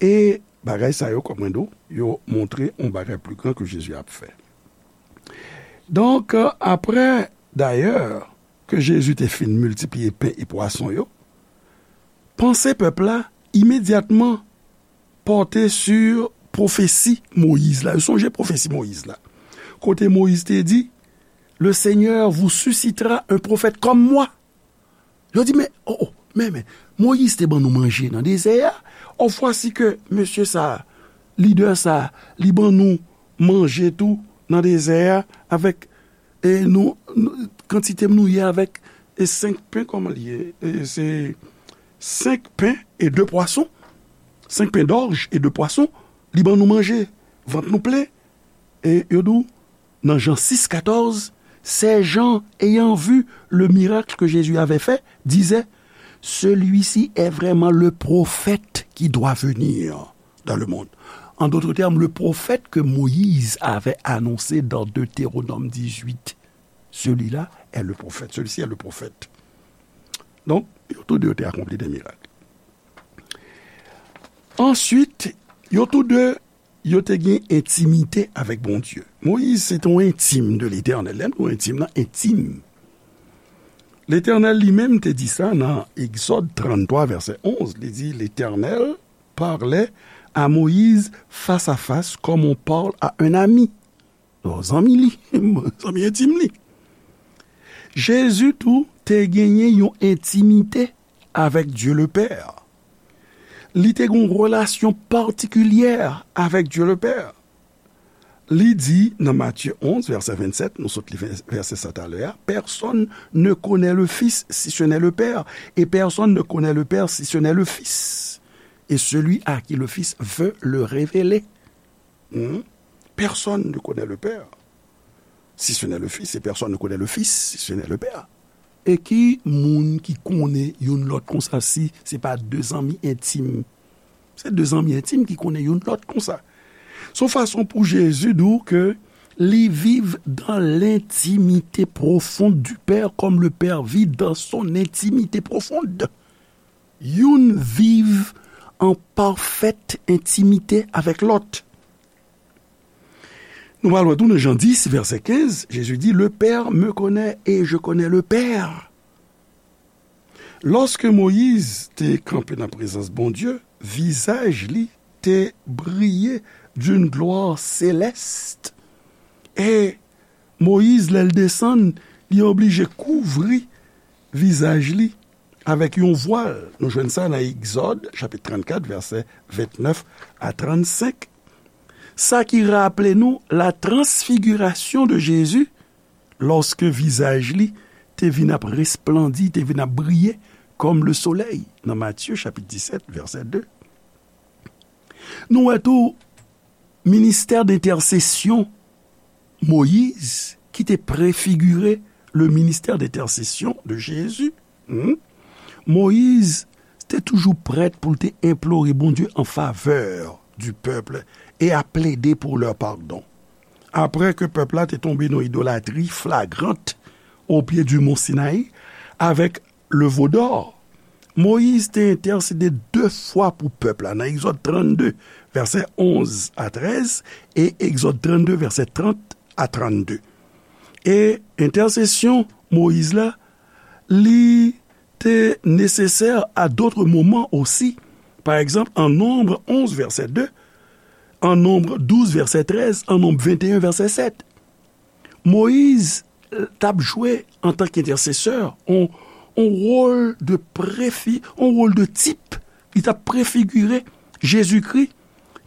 e bagay sa yo, kòm mwen di w, yo montre yon bagay pli gran ke Jezi ap fè. Donk, apre, dayè, ke Jezi te fin miltipliye pen e pwason yo, panse pèp la imedyatman pòte sou pwofesi Moyiz la. Yo sonje pwofesi Moyiz la. Kote Moyiz te di, le Seigneur vous suscitera un prophète comme moi. Yo di, men, o, o, men, men, Moyiz te ban nou manje nan dezè a. O, vwasi ke mesye sa, lidè sa, li ban nou manje tou nan dezè a avèk, e nou, nou, kantite nou ye avèk, e senk pen, kòman li ye? E se senk pen e de pwason. Senk pen dòj e de pwason. Li ban nou manje. Vant nou plen. E yo di w, nan Jan sis katòz, ces gens, ayant vu le miracle que Jésus avait fait, disaient, celui-ci est vraiment le prophète qui doit venir dans le monde. En d'autres termes, le prophète que Moïse avait annoncé dans Deutéronome dix-huit. Celui-là est le prophète. Celui-ci est le prophète. Donk, yo tou de yo te akonpli de mirak. Answit, yo tou de, yo te gen entimite avèk Bondye. Moyiz se te yon entim de Letènèl. Lè m di w entim nan, entim. Letènèl li menm te di sa nan Egzòd tranntwa, vèsè onz. Li di, L'Éternel parlait à Moïse face à face, comme on parle à un ami. Yon zanmi li, zanmi entim li. Jezi tou te genyen yon entimite avèk Dye Lepè. Li te gen yon relasyon patikilyè avèk Dye Lepè. Li di nan Matye onz, vèsè vennsèt, nou sot li vè-, vèsè sa talè a, Personne ne connaît le Fils si ce n'est le Père, et personne ne connaît le Père si ce n'est le Fils, et celui à qui le Fils veut le révéler. Hmm? Personne ne connaît le Père si ce n'est le Fils, et personne ne connaît le Fils si ce n'est le Père. E ki moun ki konnen youn lòt konsa si se pa de zanmi entim? Se de zanmi entim ki konnen youn lòt konsa. Se yon fason pou Jezi di w ke li viv dans l'intimité profonde du Père, comme le Père vit dans son intimité profonde. Youn viv an pafèt entimite avèk lòt. Nou pral wè tou nan Jan dis, vèsè kenz, Jezi di, Le Père me connaît et je connais le Père. Lòske Moyiz te kanpe nan prezans Bondye, vizaj li te briye d'une gloire céleste. E Moyiz, lè l desann, li oblije kouvri vizaj li avèk yon vwal. Nou jwenn sa nan Egzòd, chapit trannkat, vèsè ventnèf a trannsenk. Sa ki raple nou la transfigirasyon de Jezi, lòske vizaj li te vin ap resplandi, te vin ap briye kòm le solèy, nan Matye, chapit disèt, vèsè de. Nou wè tou ministè dentèsesyon Moyiz, ki te prefigire le ministè dentèsesyon de Jezi. Hmm? Moyiz te toujou prèt pou l te enplore Bondye an favè du peuple et à plaider pour leur pardon. Apre ke pèp la te tonbe nan idolatri flagrant au pied du mont Sinaï, avèk le veau d'or, Moyiz te entèsede de fwa pou pèp la, nan Egzòd trannde, vèsè onz a trèz, e Egzòd trannde, vèsè trant a trannde. E entèsesyon Moyiz la, li te nesesè à d'autres moments aussi. Pa egzanp, an Nonb onz, vèsè de, an Nonb douz, vèsè trèz, an Nonb venteyen, vèsè sèt. Moyiz, eh, t ap jwe antanke entèsesè, on, on wòl de prefi-, on wòl de tip. Li t ap prefigire Jezikri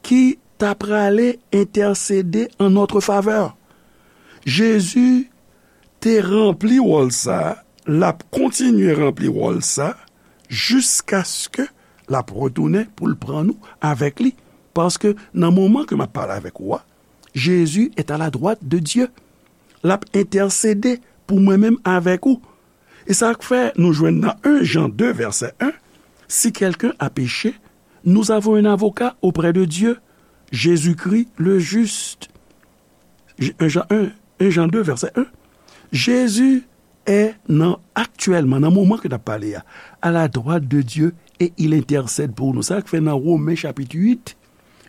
ki ta prale entèsede an notre favè. Jezi te ranpli wòl sa, l ap kontinye ranpli wòl sa jiskaske l ap retounen pou l pran nou avèk li. Paske nan moman ke m ap pale avèk ou a, Jésus est à la droite de Dieu. L ap entèsede pou mwen menm avèk ou. E sa k fè nou jwenn nan en Jan de vèsè en, Si quelqu'un a péché, nous avons un avocat auprès de Dieu, Jésus-Christ le juste. En Jan en, en Jan de vèsè en. Jezi est nan, aktyèlman, nan moman ke n ap pale a, à la droite de Dieu et il intercède pour nous. Sa k fè nan Women chapit uit,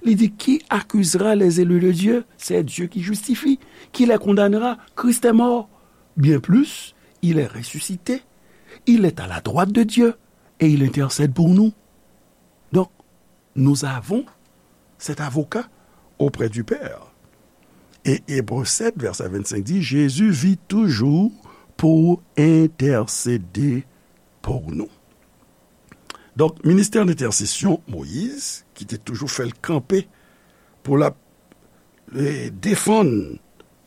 li di, Qui accusera les élus de Dieu? C'est Dieu qui justifie. Qui les condamnera? Christ est mort. Bien plus, il est ressuscité. Il est à la droite de Dieu et il intercède pour nous. Donc, nous avons cet avocat auprès du Père. Et Hébreux sept, verset vingt-cinq dit, Jésus vit toujours pour intercéder pour nous. Donk, ministè entèsesyon Moyiz, ki te toujou fè l kanpe pou l ap, eh, defann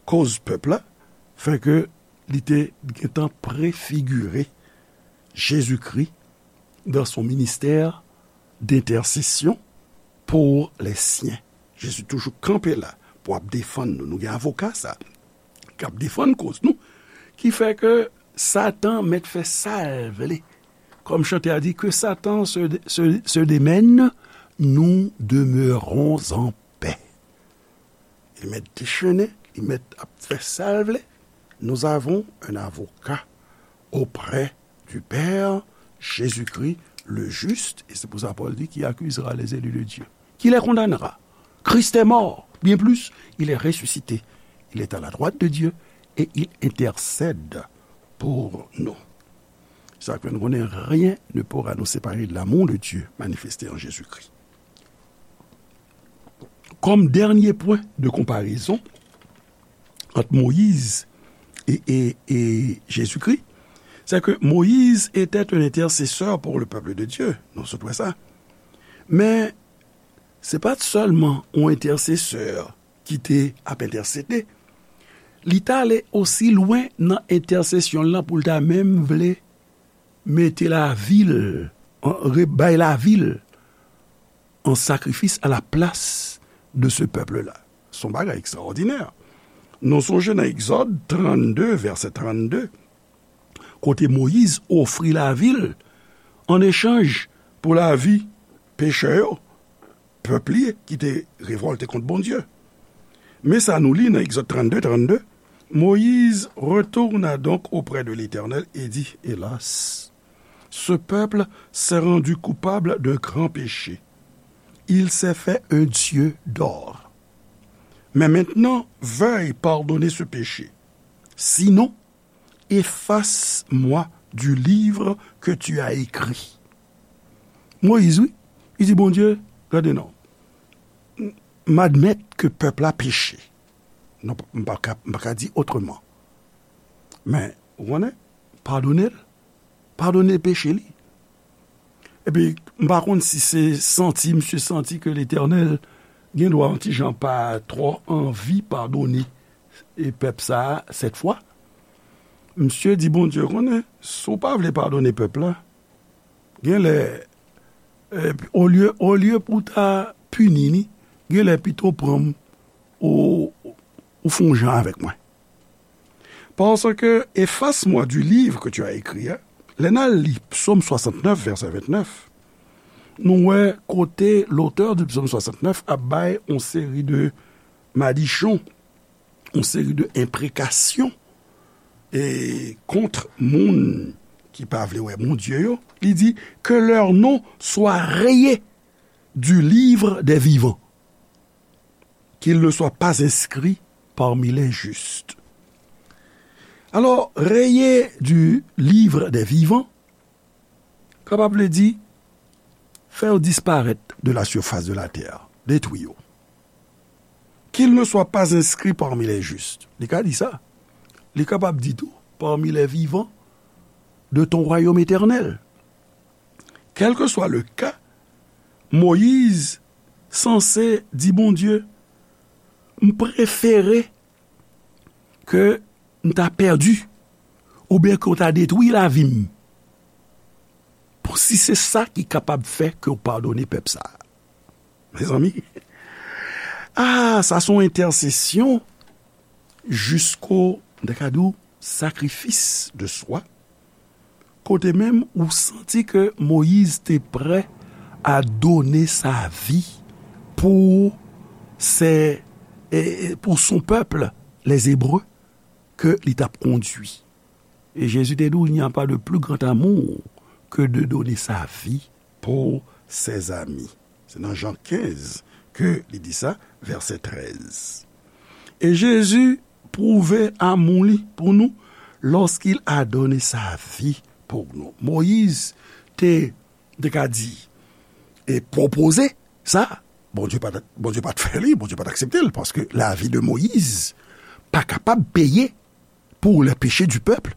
koz pèp la, fè ke li te gentan prefigire Jezikri dans son ministère d'intercession pour les siens. Jezi toujou kanpe la pou ap defann nou. Nou gen avoka sa k ap defann koz nou, ki fè ke Satan mèt fè sa l vle. Kòm chante a di, que Satan se, se, se démène, nous demeurons en paix. Li mèt dechennen, li mèt ap fè sa l vle. Nous avons un avocat auprès du Père, Jésus-Christ le juste, et c'est pour ça Paul dit, qui accusera les élus de Dieu? Qui les condamnera? Christ est mort, bien plus, il est ressuscité. Il est à la droite de Dieu et il intercède pour nous. Sa k fè nou konnen, rien ne pourra nous séparer de l'amour de Dieu manifesté en Jésus-Christ. Comme dernier point de comparaison entre Moïse et, et, et Jésus-Christ, c'est que Moïse était un intercesseur pour le peuple de Dieu. Nou sot wè sa. Men, se pa t sèlman yon entèsesè ki te ap entèsede. Li t ale osi lwen nan entèsesyon l lan pou l ta menm vle mete lavi l, an, re-, bay lavi l an sakrifis à la place de ce peuple-là. Se yon bagay ekstraòdinè. Nou sonje nan Egzòd trannde, vèsè trannde, kote Moyiz ofri lavi l an echanj pou lavi pechè yo, pèp li ki te revòlte kont Bondye. Men sa nou li nan Egzòd trannde, trannde, Moïse retourna donc auprès de l'Éternel et dit, hélas, ce peuple s'est rendu coupable d'un grand péché. Il s'est fait un dieu d'or. Mais maintenant, veuille pardonner ce péché. Sinon, efface-moi du livre que tu as écrit. Moyiz, wi, li di Bondye, gade non, m, m admèt ke pèp la peche. Non, m pa ka, m pa ka di otreman. Men, ou konnen, padone l, padone peche li. Epi, m pa konn si se santi, misye santi ke Letènèl gen dwa yon ti jan pa twò anvi padone e pèp sa a sèt fwa. Misye di Bondye, konnen, si w pa vle padone pèp la, gen lè, e, olye, olye pou w ta pini ni, gen lè pito pran m ou, ou fè yon jan avèk mwen. Parce que efface-moi du livre que tu as écrit, hein. Lè n al li Psaume soixante-neuf, verset vingt-neuf, nou wè kote l'auteur du Psaume soixante-neuf ap bay yon seri de madichon, yon seri de enprekasyon e kont moun ki pa vle wè Bondye yo. Li di, que leur nom soit rayé du livre des vivants, qu'il ne soit pas inscrit parmi les justes. Alors, rayé du livre des vivants, kapab vle di, fè yo disparèt de la surface de la terre, detwi yo. Qu'il ne soit pas inscrit parmi les justes. Li ka di sa. Li kapab di tou, parmi les vivants de ton royaume éternel. Quel que soit le cas, Moyiz sanse di Bondye, m prefere ke m ta pèdi, oubyen ke w ta detwi lavi m, pou si se sa ki kapab fè ke w padone pèp sa a. Mezanmi, ah, sa se yon entèsesyon jisko, m ta ka di w, sakrifis de swa, kote menm ou santi ke Moyiz te prè a done sa vi pou se, e, e, pou son pèp, les Hébreux, ke li t ap kondui. E Jezi te di w, il n'y a pas de plus grand amour que de donner sa vie pour ses amis. Se nan Jan kenz ke li di sa, vèsè trèz. E Jezi pwouve amou li pou nou lorsqu'il a donné sa vie pour nous. Moyiz te, te ka di, e pwopoze sa, Bondye pa t, Bondye pa t fè li, Bondye pa t aksepte l, paske lavi de Moyiz pa kapab peye pour les péchés du peuple.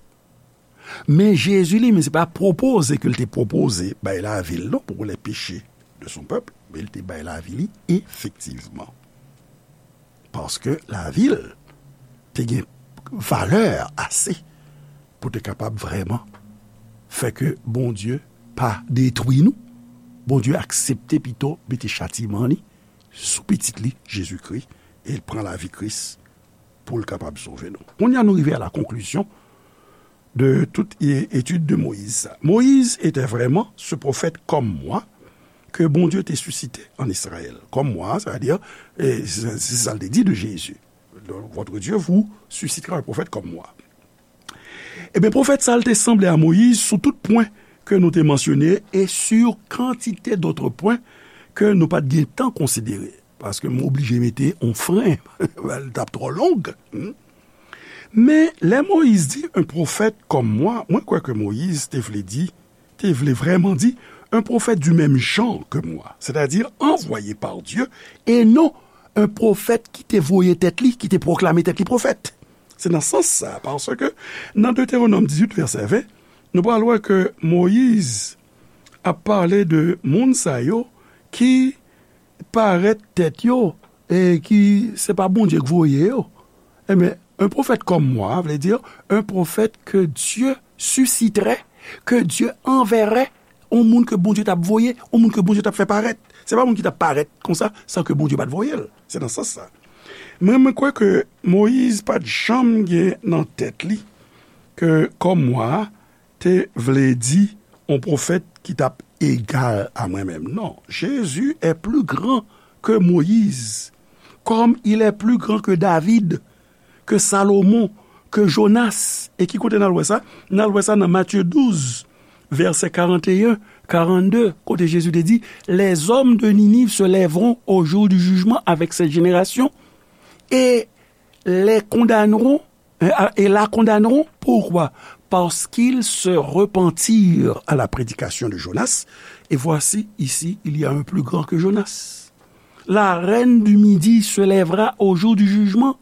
Men Jezi li menm, se pa pwopoze ke l te pwopoze bay lavi l non pou les péchés de son peuple, men l te bay lavi li efektivman. Paske lavi l te gen valè ase pou te kapab vrèman fè ke Bondye pa detwi nou. Bondye aksepte pito mete chatiman li sou pitit li, Jezikri, e l pran lavi Kris pou l kapab sove nou. Kounye a nou rive a la konklizyon de tout e-, etid de Moyiz sa. Moyiz etè vrèman se pwofèt kòm mwa ke Bondye te sisite an Izrayèl. Kòm mwa, sa vle di, e, se, se sa l te di de Jezi. Votre Dieu vous suscitera un prophète comme moi. Ebyen, pwofèt sa a, l te sanble a Moyiz sou tout pwen ke nou te mansyone e sur kantite dòt pwen ke nou pa t gen tan konsidere. Paske m oblije mete yon fren, l t ap twò long. Hmm. Men, lè Moyiz di un prophète comme moi, mwen kwè ke Moyiz te vle di, te vle vrèman di, un prophète du même genre que moi, c'est-à-dire envoyé par Dieu, et non un pwofèt ki te voye tèt li, ki te pwoklame tèt li pwofèt. Se nan sans sa, paske nan Detewonòm dizuit, vèsè ven, nou pral wè ke Moyiz ap pale de moun sa yo ki parèt tèt yo e ki se pa Bondye k voye yo. Ebyen, un prophète comme moi, vle di, un prophète que Dieu susciterait, que Dieu enverrait, yon moun ke Bondye t ap voye, yon moun ke Bondye t ap fè parèt. Se pa moun ki t ap parèt konsa, san ke Bondye pa t voye l. Se nan sans sa. Men mwen kwè ke Moyiz pa t janm gen nan tèt li ke kòm mwa te vle di yon pwofèt ki t ap egal a mwen menm. Non, Jésus est plus grand que Moïse, comme il est plus grand que David, que Salomon, que Jonas. E ki kote n al wè sa? N al wè sa nan Matye douz, vèsè karanteyen, karannde, kote Jezi te di, les hommes de Ninive se lèveront au jour du jugement avec cette génération et les condamneront, euh, et la condamneront. Pourquoi? Parce qu'ils se repentirent à la prédication de Jonas. Et voici, ici, il y a un plus grand que Jonas. La reine du Midi se lèvera au jour du jugement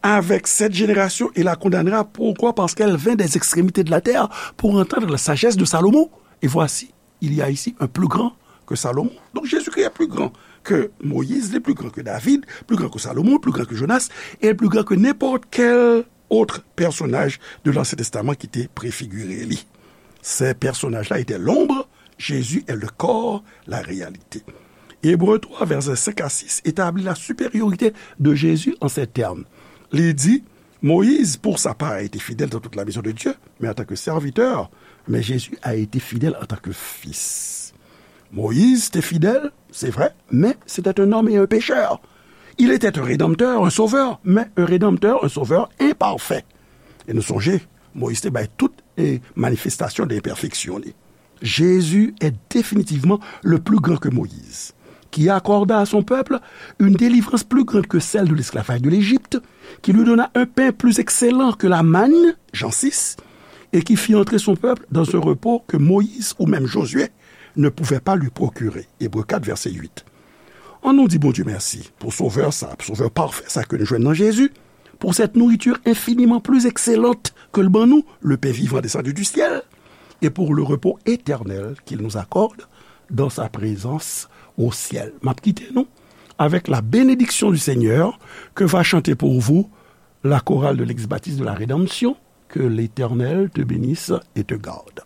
avec cette génération et la condamnera. Pourquoi? Parce qu'elle vint des extrémités de la terre pour entendre la sagesse de Salomon. Et voici, il y a ici un plus grand que Salomon. Donc Jésus-Christ est plus grand que Moïse, il est plus grand que David, plus grand que Salomon, plus grand que Jonas, et plus grand que n'importe quel autre personnage de l'Ancien Testament ki te prefigire li. Ces personnages-là étaient l'ombre, Jésus est le corps, la réalité. Hébreux trois, versets cinq à six, établit la supériorité de Jésus en ces termes. Li di, Moïse, pour sa part, a été fidèle dans toute la maison de Dieu, mais en tant que serviteur, mais Jésus a été fidèle en tant que fils. Moïse était fidèle, c'est vrai, mais c'était un homme et un pécheur. Il était un rédempteur, un sauveur, mais un rédempteur, un sauveur imparfait. E nou sonje, Moyiz te bay tout e manifestasyon de enpèfeksyon li. Jésus est définitivement le plus grand que Moïse, qui accorda à son peuple une délivrance plus grande que celle de l'esclavage de l'Égypte, qui lui donna un pain plus excellent que la manne, Jean six, et qui fit entrer son peuple dans un repos que Moïse ou même Josué ne pouvait pas lui procurer. Hébreux quatre, verset huit. Ann nou di Bondye mèsi pou Sovè sa, pou Sovè pafè sa ke nou jwenn nan Jezi, pour cette nourriture infiniment plus excellente que le ban nou, le pain vivant descendu du ciel, et pour le repos éternel qu'il nous accorde dans sa présence au ciel. M ap kite nou avec la bénédiction du Seigneur que va chanter pour vous la chorale de l'ex-baptiste de la rédemption. Que l'Éternel te bénisse et te garde.